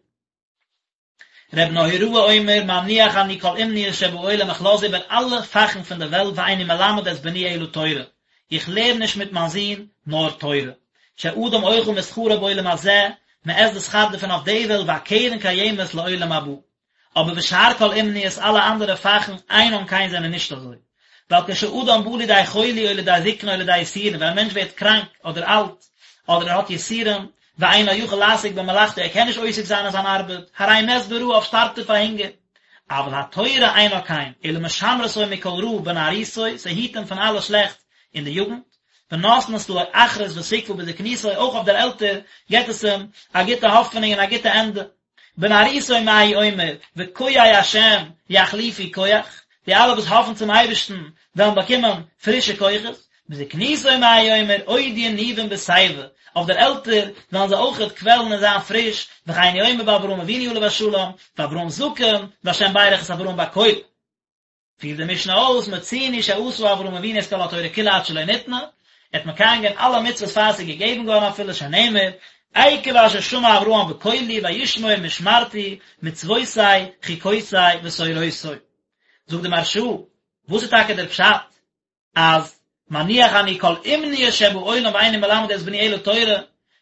ר' נהוראי אומר מניח אני כל אומניות שבעולם איך לאז איבער אלע פאכן פון די וועלט ואיני מלמד את בני אלא תורה, איך לערן נישט מיט מיין זון נאר תורה, שאדם אוכל משכרו בעולם הזה, מען עסט די שכר דערפון אויף די וועלט והקרן קיימת לעולם הבא. אבער ושאר כל אומניות אלע אנדערע פאכן אינן כן זענען נישט אזוי. ווייל כשאדם בא לידי חולי או לידי זקנה או לידי יסורין ווען א מענטש ווערט קראנק אדער אלט אדער ער האט יסורים ואינו יכול לעסוק במלאכתו ער קען נישט עוסק זיין אין זיין ארבעט הרי מת ברעב שטארבט ער פאר הונגער. אבל התורה אינה כן אלא משמרתו מכל רע בנערותו ס'היט אים פון אלע שלעכטס אין די יוגנט ונותנת לו אחרית ותקוה בזקנותו אויך אויף דער עלטער געבט עס אים א גוטע האפענונג און א גוטע ענדע. בנערותו מה הוא אומר, וקויי השם יחליפו כח, די אלע וואס האפן צום אייבערשטן וועלן באקומען פרישע כוחות, בזקנותו מה הוא אומר, עוד ינובון בשיבה, אויף דער עלטער וועלן זיי אויכעט קוועלן און זיין פריש, וכן הוא אומר באברהם אבינו עליו השלום, ואברהם זקן, והשם ברך את אברהם בכל. פירט די משנה אויס, מצינו שעשה אברהם אבינו את כל התורה כולה עד שלא ניתנה, ער האט מקיים געווען אלע מצוות פאר עס איז געגעבן געווארן אפילו שנאמר, עקב אשר שמע אברהם בקולי וישמור משמרתי מצוותי חוקותי ותורותי. זאגט די מהרש"א, וואס איז טאקע דער פשט אז מניח אני כל אומניות שבעולם ואיני מלמד את בני אלא תורה,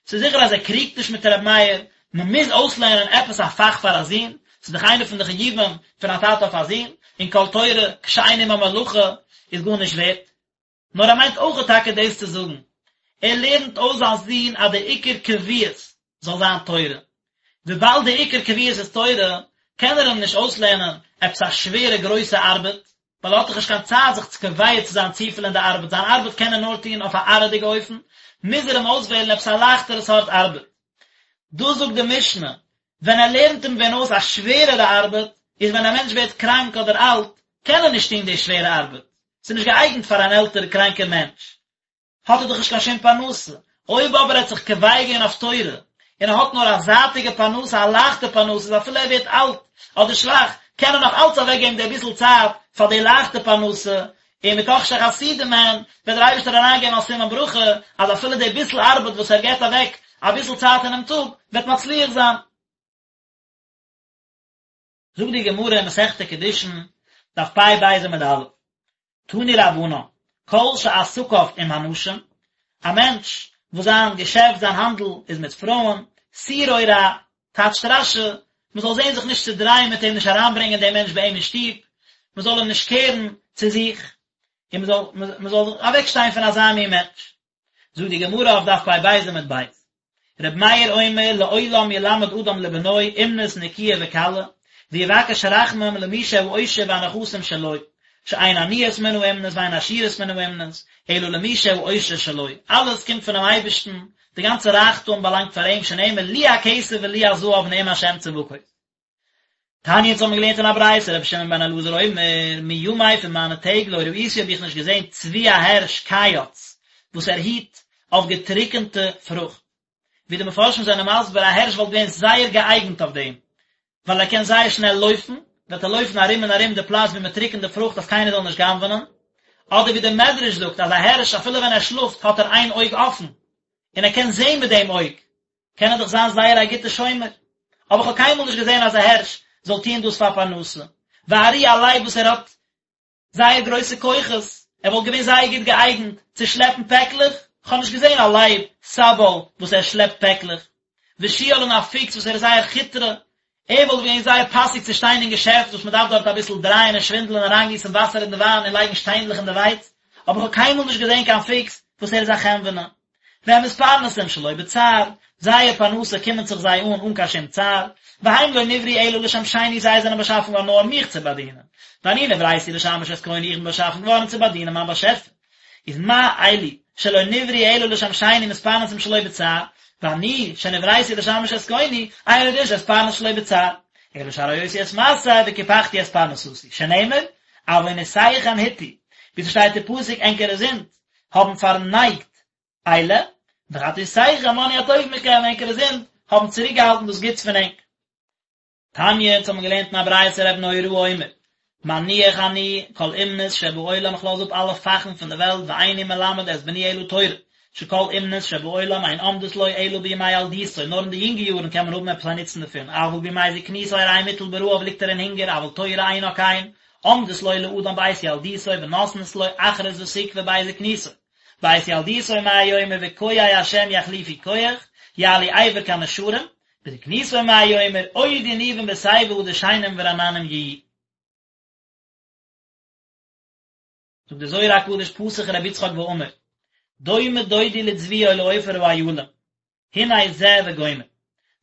ס'איז זיכער אז ער קריגט נישט מיט ר' מאיר, מ'מוז אויסלערנען עפעס א פאך פאר א זון, ס'איז דאך איינע פון די חיובים פון א טאטע אויף א זון, און כל תורה כשאין עמה מלאכה איז גארנישט ווערט. נאר ער מיינט אויכעט טאקע דאס צו זאגן, ער לערנט אויס זיין זון אז די עיקר קביעות זאל זיין תורה, וויבאלד די עיקר קביעות איז תורה, קען ער אים נישט אויסלערנען עפעס א שווערע גרויסע ארבעט, ווייל ער האט דאך נישט קיין צייט זיך צו קובע צו זיין צופיל אין די ארבעט, זיין ארבעט קען ער נאר טון אויף א עראי'דיגע אופן, מוז ער אים אויסוועלן עפעס א לייכטערע סארט ארבעט. דאס זאגט די משנה, ווען ער לערנט אים ווען אויס א שווערערע ארבעט, איז ווען א מענטש ווערט קראנק אדער אלט, קען ער נישט טון די שווערע ארבעט, ס'איז נישט געאייגנט פאר אן עלטערע קראנקער מענטש. האט ער דאך נישט קיין שום פרנסה. אויב אבער ער האט זיך קובע געווען אויף תורה, און ער האט נאר א זייטיגע פרנסה, א לייכטע פרנסה, איז אפילו ער ווערט אלט אדער שוואך, קען ער נאך אלץ אוועקגעבן די ביסל צייט פאר די לייכטע פרנסה, און מתוך שחסידים הן, וועט דער אייבערשטער אריינגעבן א סימן ברכה, אז אפילו די ביסל ארבעט וואס ער געבט אוועק אביסל צייט אינעם טאג, וועט מצליח זיין. זאגט די גמרא אין מסכת קידושין, דף פ"ב עמוד א', תנו רבנן, כל שעסקיו עם הנשים, א מענטש וואס זיין געשעפט, זיין האנדל איז מיט פרויען, סורו רע, טייטשט רש"י, מען זאל זען זיך נישט צו דרייען מיט אים, נישט אריינברענגען דעם מענטש ביי אים אין שטוב, מען זאל אים נישט קערן צו זיך, און מען זאל מען זאל אוועקשטיין פון אזא מין מענטש. זאגט די גמרא אויף דף פ"ב עמוד ב', רבי מאיר אומר לעולם ילמד אדם לבנו אומנות נקיה וקלה, ויבקש רחמים למי שהעושר והנכסים שלו, שאין עניות מן האומנות ואין עשירות מן האומנות, אלא למי שהעושר שלו, אלעס קומט פונעם אייבערשטן, די גאנצע רייכטום באלאנגט פאר אים, שנאמר לי הכסף ולי הזהב נאם השם צבקות. תניא אונז האבן געלערנט אין א ברייתא רבי שמעון בן אלעזר אומר מימי פון מיינע טעג לא ראיתי האב איך נישט געזען צבי א הערש קייץ וואס ער היט אויף געטריקענטע פרוכט ווי די מפרשים זענען מסביר א הערש וואלט געווען זייער געאייגנט אויף דעם ווייל ער קען זייער שנעל לויפן וועט ער לויפן ארום און ארום די פלאץ ווי מען טריקענט די פרוכט אז קיינער זאל נישט גנב'נען אדער ווי די מדרש זאגט אז א הערש אפילו ווען ער שלאפט האט ער איין אויג אפן און ער קען זען מיט דעם אויג קען ער דאך זיין זייער א גוטע שומר, אבער איך האב קיינמאל נישט געזען אז א הערש זאל טוען דאס פאר פרנסה, וארי א לייב וואס ער האט זייער גרויסע כוחות, ער וואלט געווען זייער גוט געאייגנט צו שלעפן פעקלעך, איך האב נישט געזען א לייב סבל וואס ער שלעפט פעקלעך, ושועל און א פוקס וואס ער איז זייער כיטרע, ער וואלט געווען זייער פאסיג צו שטיין אין געשעפט וואס מען דארף דארט אביסל דרייען און שווינדלען אריינגיסן וואסער אין די וויין און לייגן שטיינדלעך אין די ווייץ, אבער איך האב קיינמאל נישט געזען קיין פוקס וואס ער איז א חנווני. והם מתפרנסים שלא בצער, זייער פרנסה קומען זיך זיי אן אן קיין שום צער, והם לא נבראו אלא לשמשני זיי זענען באשאפן געווארן נאר מיך צו באדינען, ואני נבראתי לשמש את קוני איך בין באשאפן געווארן צו באדינען מיין באשעפער. איז מה אלו שלא נבראו אלא לשמשני מתפרנסים שלא בצער, ואני שנבראתי לשמש את קוני, אינו דין שאתפרנס שלא בצער, אלא שהרעותי את מעשי וקיפחתי את פרנסתי, שנאמר, עוונותיכם הטו. ווי ס'שטייט אין פסוק ענקערע זינד האבן פארנייגט אלה, וחטאותיכם מנעו הטוב מכם, ענקערע זינד האבן צוריקגעהאלטן דאס גוטס פון ענק. תניא, אונז האבן געלערנט אין א ברייתא ר' נהוראי אומר, מניח אני כל אומנות שבעולם איך לאז אפ אלע פאכן פון די וועלט ואיני מלמד את בני אלא תורה, שכל אומנות שבעולם אין עומדות לו אלא בימי ילדותו, נאר אין די יונגע יארן קען מען האבן עפעס א נוצן דערפון, אבל בימי זקנותו הרי מוטל ברעב ליגט ער אין הונגער, אבל תורה אינה כן, עומדת לו לאדם בעת ילדותו ונותנת לו אחרית ותקוה בעת זקנותו. בעת ילדותו מה הוא אומר וקויי השם יחליפו כח, יעלו אבר כנשרים, בזקנותו מה הוא אומר עוד ינובון בשיבה דשנים ורעננים יהיו. זאגט דער זוהר הקדוש פתח רבי יצחק ואמר, דומה דודי לצבי או לעופר האילים, הנה זה וגומר.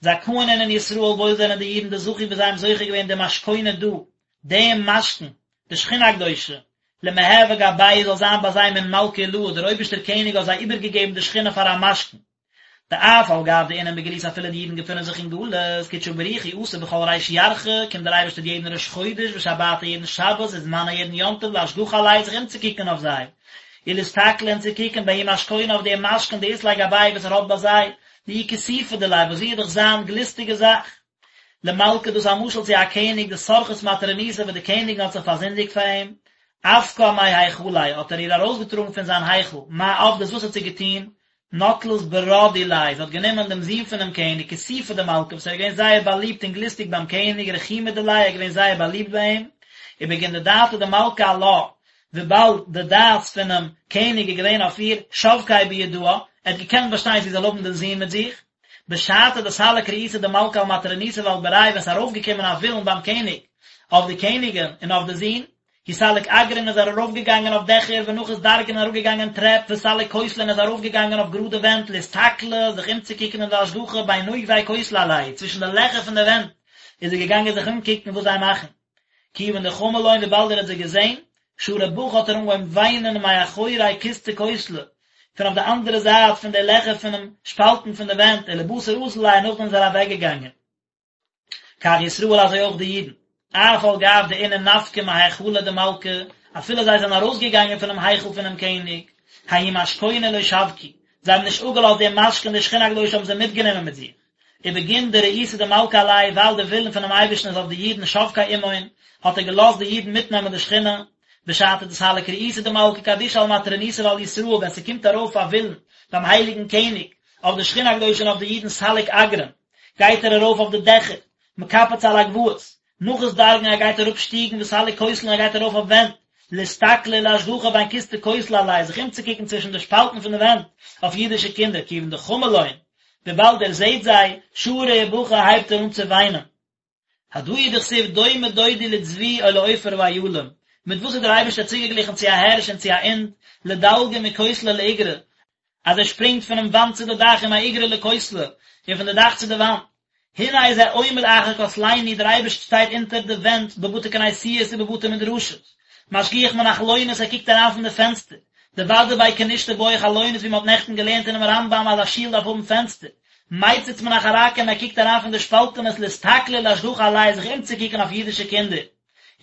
זכאין אינון ישראל וואויל זענען די אידן דזכו וואס זיי האבן זוכה געווען דמשכונא דא, דעם משכון, די שכינה הקדושה, למהוי גבייהו זאל זיין ביי זיי מן מלכא עילאה, דער אויבערשטער קעניג האט זיי איבערגעגעבן די שכינה פאר א משכון. דאף על גב דאינון בגלותא אפילו די אידן געפונען זיך אין גלות, קודשא בריך הוא אתי בכל ריש ירחא, קומט דער אייבערשטער יעדן ראש חודש ושבתא יעדן שבת וזמנא יעדן יום טוב לאשגחא עלייהו זיך אומצוקוקן אויף זיי, ולאסתכלא און צו קוקן בההוא משכונא אויף דעם משכון דאית ליה גבייהו וואס ער האט ביי זיי, דאיהי כיסופא דיליה וואס זי איז דאך זיין גליסטיגע זאך. למלכא דאס איז א משל צו א קעניג דסרחת מטרוניתא וואס די קעניגן האט זיך פארזינדיגט פאר אים, אפקה מהיכליה האט ער איר ארויסגעטראגן פון זיין היכל, מה עבדת וואס האט זי געטון, נטלת ברא דיליה, זי האט גענומען דעם זון פונעם קעניג, כיסופא דמלכא, וואס ער איז געווען זייער באליבט און גליסטיג ביים קעניג, רחימא דיליה, ער איז געווען זייער באליבט ביי אים, ובגין דדעתא דמלכא עלה, וויבאלד די דעת פונעם קעניג איז געווען אויף איר, שבקיה בידהא, ער האט געקענט באשטיין זי זאל האבן דעם זון מיט זיך. בשעתא דסליק רעותא דמלכא על מטרוניתא ועל בריה ווען ס'איז ארויפגעקומען א ווילן ביים קעניג אויף די קעניגין און אויף די זון, הוא סליק אגרין איז ער ארויפגעגאנגען אויף דעכער ונחית דרגין און אראפגעגאנגען טרעפ וסליק כותלין איז ארויפגעגאנגען אויף גראדע ווענט לאסתכלא זיך אומצוקוקן און לאשגחא בין נובי כותלא עלייהו צווישן די לעכער פון די ווענט איז ער געגאנגען זיך אומקוקן וואס זיי מאכן כיוון דחמא לון וויבאלד ער האט זיי געזען שרא בכי האט ער אנגעהויבן וויינען מאחורי כוסתי כותלא פון אויף די אנדערע זייט פון די לעכער פונעם שפאלטן פון די ווענט ולבתר אזל ליה נאכדעם איז ער אוועקגעגאנגען. כך ישראל אזוי אויך די אידן, אף על גב דאינון נפקי מהיכלא דמלכא, אפילו זיי זענען ארויסגעגאנגען פונעם היכל פונעם קעניג, ההוא משכונא לא שבקו, זיי האבן נישט אפגעלאזט דעם משכון די שכינה הקדושה האבן זיי מיטגענומען מיט זיך, ובגין דרעותא דמלכא עלייהו ווייל די ווילן פונעם אייבערשטן איז אויף די אידן שבקיה עמהון, האט ער געלאזט די אידן מיטנעמען די שכינה, בשעתא דסליק רעותא דמלכא קדישא על מטרוניתא ועל ישראל ווען ס'קומט ארויף א ווילן ביים הייליגן קעניג אויף די שכינה הקדושה און אויף די אידן סליק אגרין, גייט ער ארויף אויף די דעכער, מקפץ על הגבעות, נחית דרגין ער גייט אראפ שטיגן וסליק כותלין ער גייט ארויף אויף ווענט, לאסתכלא ולאשגחא בין כוסתי כותלא עלייהו זיך אומצוקוקן צווישן די שפאלטן פון די ווענט אויף אידישע קינדער כיוון דחמא לון, וויבאלד ער זעט זיי, שרא ובכי הייבט ער אן צו וויינען. הדא הוא דכתיב דומה דודי לצבי או לעופר האילים, מיט וואס איז דער אייבערשטער צוגעגליכן צו א הערש און צו א אינד, לדלגא מכותלא לאיגרא, אז ער שפרינגט פונעם וואנט צו די דאך ומאיגרא לכותלא, און פון די דאך צו די וואנט. הנה זה עומד אחר כותלינו, דער אייבערשטער שטייט אונטער די ווענט בבתי כנסיות ובבתי מדרשות, משגיח מן החלונות ער קוקט אריין פון די פענסטער, דודאי בי כנישתא בעי חלונות ווי מען האט נעכטן געלערנט אינעם רמב"ם אז א שול דארף האבן פענסטער, מציץ מן החרכים ער קוקט אריין פון די שפאלטענעס לאסתכלא ולאשגחא עלייהו זיך אומצוקוקן אויף אידישע קינדער.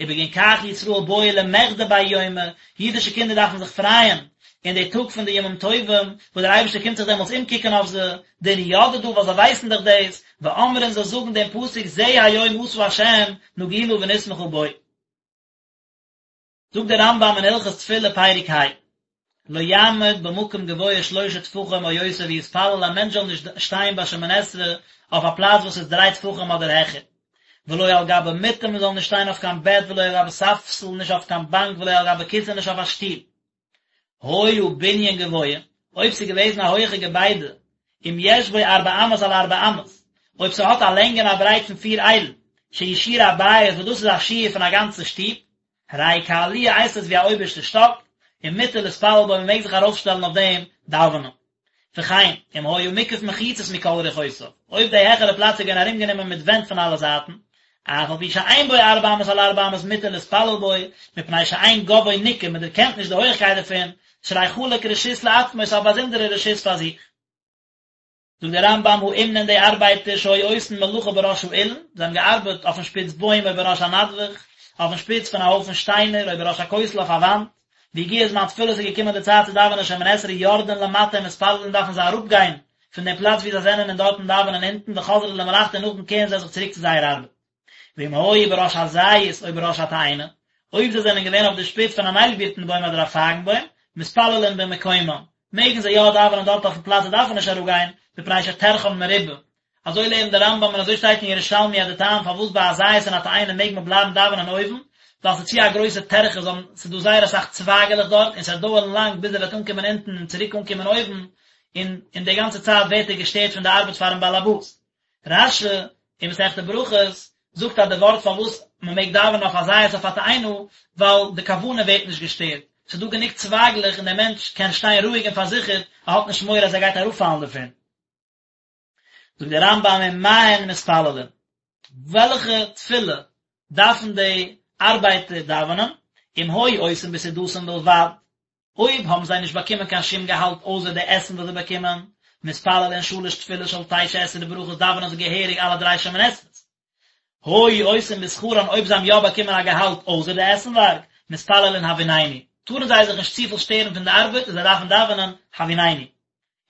ובגין כך ישראל בעו למחדי בההוא יומא, אידישע קינדער דארפן זיך פרייען אין די טאג פון די ימים טובים, וואס דער אייבערשטער קומט זיך דעמאלטס אומקוקן אויף זיי, דאינהו ידעי דא ווייל זיי ווייסן דאך דאס, ואמרין זיי זאגן דעם פסוק זה היום עשה ה' נגילה ונשמחה בו. זאגט דער רמב"ם אין הלכות תפילה פרק ה, לא יעמוד במקום גבוה שלשה טפחים או יותר ויתפלל א מענטש זאל נישט שטיין ביי שמונה עשרה אויף א פלאץ וואס איז דריי טפחים אדער העכער, ולא על גבי מיטה מען זאל נישט שטיין אויף קיין בעט ולא על גבי ספסל נישט אויף קיין באנק ולא על גבי כסא נישט אויף א שטול. היה בנין גבוה, אויב ס'איז געוועזן א הויעכע געביידע, אם יש בו ארבע אמות על ארבע אמות, אויב ס'האט א לענג און א ברייט פון פיר איילן, שהוא שיעור הבית וואס דאס איז א שיעור פון א גאנצע שטוב, הרי הוא כעליה הייסט עס ווי א אויבערשטע שטאק, ומותר להתפלל בו מ'מעג זיך ארויפשטעלן אויף דעם דאווענען. וכן, אם היה מוקף מחיצות מכל רוחותיו, אויב די העכערע פלאץ איז געווען ארומגענומען מיט ווענט פון אלע זייטן, אף על פי שאין בו ארבע אמות על ארבע אמות מותר להתפלל בו, מפני שאין גובהו ניכר, מען דערקענט נישט די הויכקייט דערפון, שהרי חלק רשות לעצמו, ס'איז א באזונדערע רשות פאר זיך. זאגט דער רמב"ם האומנין די ארבייטער שהיו עושין מלאכה בראש האילן, זיי האבן געארבעט אויפן שפיץ בוים או בראש הנדבך, אויפן שפיץ פון א הויפן שטיינער או בראש הכותל אויף א וואנט, והגיע זמן תפילה ס'איז געקומען די צייט צו דאווענען שמונה עשרה יורדין למטה ומתפללין דארפן זיי אראפגיין פון דעם פלאץ וואו זיי זענען און דארטן דאווענען אונטן וחוזרין למלאכתן און נאכדעם קערן זיי זיך צוריק צו זייער ארבעט. ואם היו בראש הזית או בראש התאנה, אויב זיי זענען געווען אויף די שפיץ פון אן איילבירטן בוים אדער א פייגן בוים, מתפללין במקומם, מעגן זיי יא דאווענען דארט אויפן פלאץ זיי דארפן נישט אראפגיין, מפני שטרחן מרובה. אזוי לערנט דער רמב"ם און אזוי שטייט אין ירושלמי אז די טעם פארוואס ביי א זית און א תאנה מעג מען בלייבן דאווענען אויבן, ווייל ס'איז צו א גרויסע טרחה זיי האבן ס'איז דא זייער אסאך צווייגעלעך דארט און ס'וועט דויערן לאנג ביז ער וועט אנקומען אונטן און צוריק אנקומען אויבן, און אין די גאנצע צייט ווערט ער געשטערט פון די ארבעט פארן באלעבאס. רש"י אין מסכת ברכות זאגט אז די ווארט פארוואס מען מעג דאווענען אויף א זית אויף א תאנה ווייל די כוונה ווערט נישט געשטערט, ס'איז דא גענוג צווייגלעך און דער מענטש קען שטיין רואיג און פארזיכערט, ער האט נישט מורא אז ער גייט אראפפאלן דערפון. זאגט דער רמב"ם ומה הן מתפללין, וועלכע תפילה דארפן די ארבייטער דאווענען, אם היו עושים בסעודתן בלבד, אויב האבן זיי נישט באקומען קיין שום געהאלט אויסער די עסן וואס זיי באקומען, מתפללין שלש תפילות של תשע עשרה ברכות דאווענען זיי געהעריג אלע דריי שמונה עשרה'ס. היו עושים בשכרן אויב זיי האבן יא באקומען א געהאלט אויסער די עסנווארג, מתפללין הביננו, טארן זיי זיך נישט צופיל שטערן פון די ארבעט און זיי דארפן דאווענען הביננו.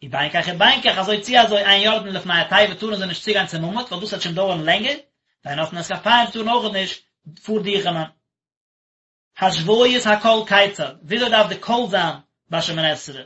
ובין כך ובין כך אזוי צי אזוי אין יורדין לפני התיבה טארן זיי נישט צוגיין צום עמוד ווייל דאס וועט שוין דויערן לענגער, ואין נושאין את כפיהם טארן אויכעט נישט פארדוכענען. השוויית הקול כיצד, וויאזוי דארף די קול זיין ביי שמונה עשרה?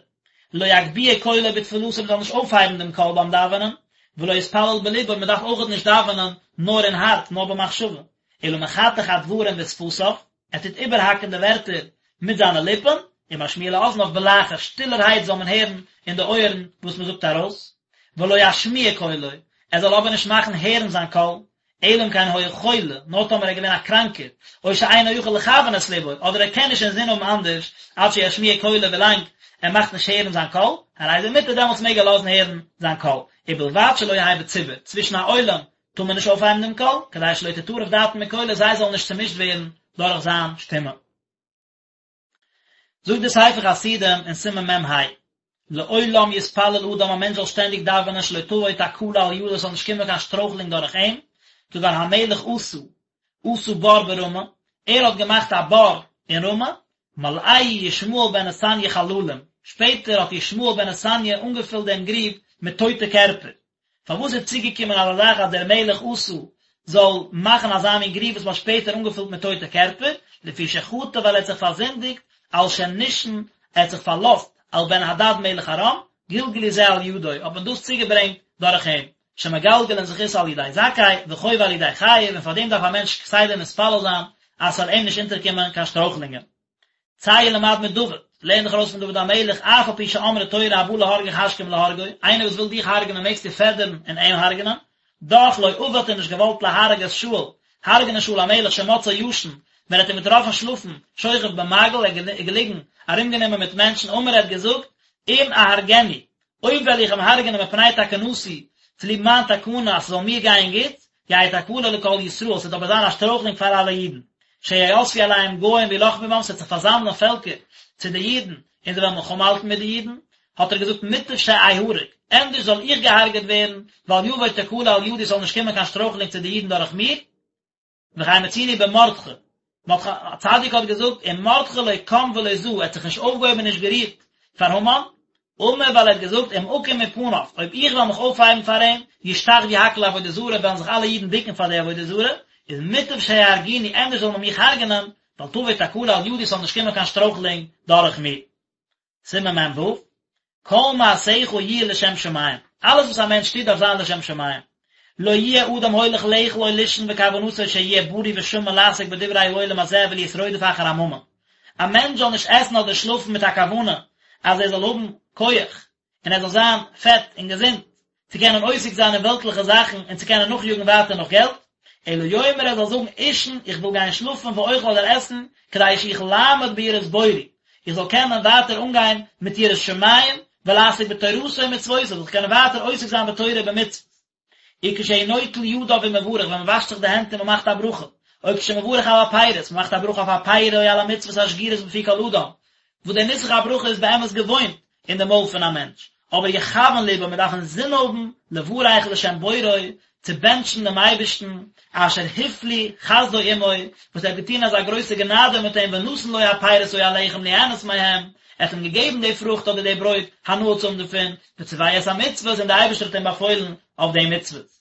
לא יגביה קולו בתפלתו מען זאל נישט אויפהייבן דעם קול ביים דאווענען, ולא יתפלל בלבו מען דארף אויכעט נישט דאווענען נאר אין הארץ נאר במחשבה, אלא מחתך הדברים בשפתיו, ער טוט איבערהאקן די ווערטער מיט זיינע ליפן, ומשמיע לאזניו בלחש, שטילערהייט זאל מען הערן אין די אויערן וואס מען זאגט ארויס, ולא ישמיע קולו, ער זאל אבער נישט מאכן הערן זיין קול, אלא אם כן היה חולה, נאר טאמער ער איז געווען א קראנקער, או שאינו יכול לכוון את לבו, אדער ער קען נישט אינזין האבן אנדערש, עד שישמיע קולו ווילאנג ער מאכט נישט הערן זיין קול, הרי זה מותר דעמאלטס מעג ער לאזן הערן זיין קול, ובלבד שלא יהא בציבור, צווישן א עולם טאר מען נישט אויפהייבן דעם קול, כדי שלא תטרף דעתן מקולו זיי זאלן נישט צומישט ווערן דורך זיין שטימע. זאגט דער ספר חסידים אין סימן מ"ה, לעולם יתפלל אדם א מענטש זאל שטענדיג דאווענען שלא תבוא תקלה על ידו עס זאל נישט קומען קיין שטרויכלונג דורך אים, כגון המלך אסא, עשה בור ברמה, ער האט געמאכט א בור אין רמה, מלאהו ישמעאל בן נתניה חללים, שפעטער האט ישמעאל בן נתניה אנגעפילט דעם גריב מיט טויטע קערפער, פארוואס איז צוגעקומען אזא זאך אז דער מלך אסא זאל מאכן אזא מין גריב וואס מ'האט שפעטער אנגעפילט מיט טויטע קערפער, לפי שחטא ווייל ער האט זיך פארזינדיגט, על שנשען, ער האט זיך פארלאזט, על בן הדד מלך ארם, גלגלו זה על ידו, האט מען דאס צוגעברענגט דורך אים, שמגלגלין זכות על ידי זכאי, וחובה על ידי חייב, און פאר דעם דארף א מענטש כסדר מתפלל זיין אז ס'זאל אים נישט אונטערקומען קיין שטרויכלונגען. צא ולמד מדוד, לערן דיך ארויס פון דוד המלך, אף על פי שאמרה תורה הבא להרגך השכם להרגו, איינער וואס וויל דיך הרג'נען מעגסטו פעדערן און אים הרג'נען, דאך לא אבה האט ער נישט געוואלט להרוג את שאול, הרג'נען שאול המלך שמצאו ישן, ווען ער האט אים געטראפן שלאפן, שוכב במעגל, ער איז געליגן ארומגענומען מיט מענטשן, אמר ער האט געזאגט, אם אהרגנו, אויב וועל איך אים הרג'נען מפני תקנתי, צוליב מיין תקנה אז ס'זאל מיר גיין גוט, יהא תקלה לכל ישראל, ס'וועט אבער זיין א שטרויכלונג פאר אלע אידן, שיאספו אליהם גוים וילחמו בם, ס'וועט זיך פארזאמלען פעלקער צו די אידן, און זיי וועלן מלחמה האלטן מיט די אידן, האט ער געזאגט מוטב שאהרג, ענדערש זאל איך געהארגעט ווערן, ואל יבוא תקלה על ידי, ס'זאל נישט קומען קיין שטרויכלונג צו די אידן דורך מיר, וכן מצינו במרדכי, מרדכי הצדיק האט געזאגט, ומרדכי לא קם ולא זע, ער האט זיך נישט אויפגעהויבן און נישט גערירט פאר המן, אמר ווייל ער האט געזאגט, אם אקום מפניו, אויב איך וועל מיך אויפהייבן פאר אים, ישתחוו הכל לעבודה זרה, וועלן זיך אלע אידן בוקן פאר די עבודה זרה, איז מוטב שיהרגוני, ענדערש זאל מען מיך הרג'נען, ואל תבוא תקלה על ידי, ס'זאל נישט קומען קיין שטרויכלונג דורך מיר. סימן מ"ו, כל מעשיך יהיו לשם שמים, אלעס וואס א מענטש טוט דארף זיין לשם שמים, לא יהיה אדם הולך לאכול או לישון וכוונתו שיהיה בריא ושמן לעסוק בדברי העולם הזה ולהיות רודף אחר הממון, א מענטש זאל נישט עסן אדער שלאפן מיט א כוונה אז ער זאל האבן כח און ער זאל זיין פעט און געזונט, צו קענען עוסק זיין אין וועלטליכע זאכן און צו קענען נאכיאגן ווייטער נאך געלט, אלא יאמר ער זאל זאגן אישן, איך וויל גיין שלאפן ואוכל אדער עסן, כדי שאוכל לעמוד ביראת בוראי, איך זאל קענען ווייטער אנגיין מיט יראת שמים, ולעסוק בתורתו ומצוותיו, זאל איך קענען ווייטער עוסק זיין בתורה ובמצוות. וכשהוא נוטל ידיו ומברך, ווען מען וואשט זיך די הענט און מען מאכט א ברכה, או כשמברך על הפירות, מען מאכט א ברכה אויף א פרי או על המצוות השגורות בפי כל אדם, וואס דער נוסח הברכה איז באמת געוואוינט אין די מויל פון א מענטש, אבער יכוון לבו, מען דארף אינזין האבן לברך לשם בוראו, צו בענטשן דעם אייבערשטן, אשר הפליא חסדו עמו, וואס ער האט געטון אזא גרויסע גענאדע מיט אים ונתן לו הפירות או הלחם ליהנות מהם, ער האט אים געגעבן די פרוכט אדער די ברויט הנאה צו האבן דערפון, וצוהו את המצוות און דער אייבערשטער האט אים באפוילן אויף די מצוות.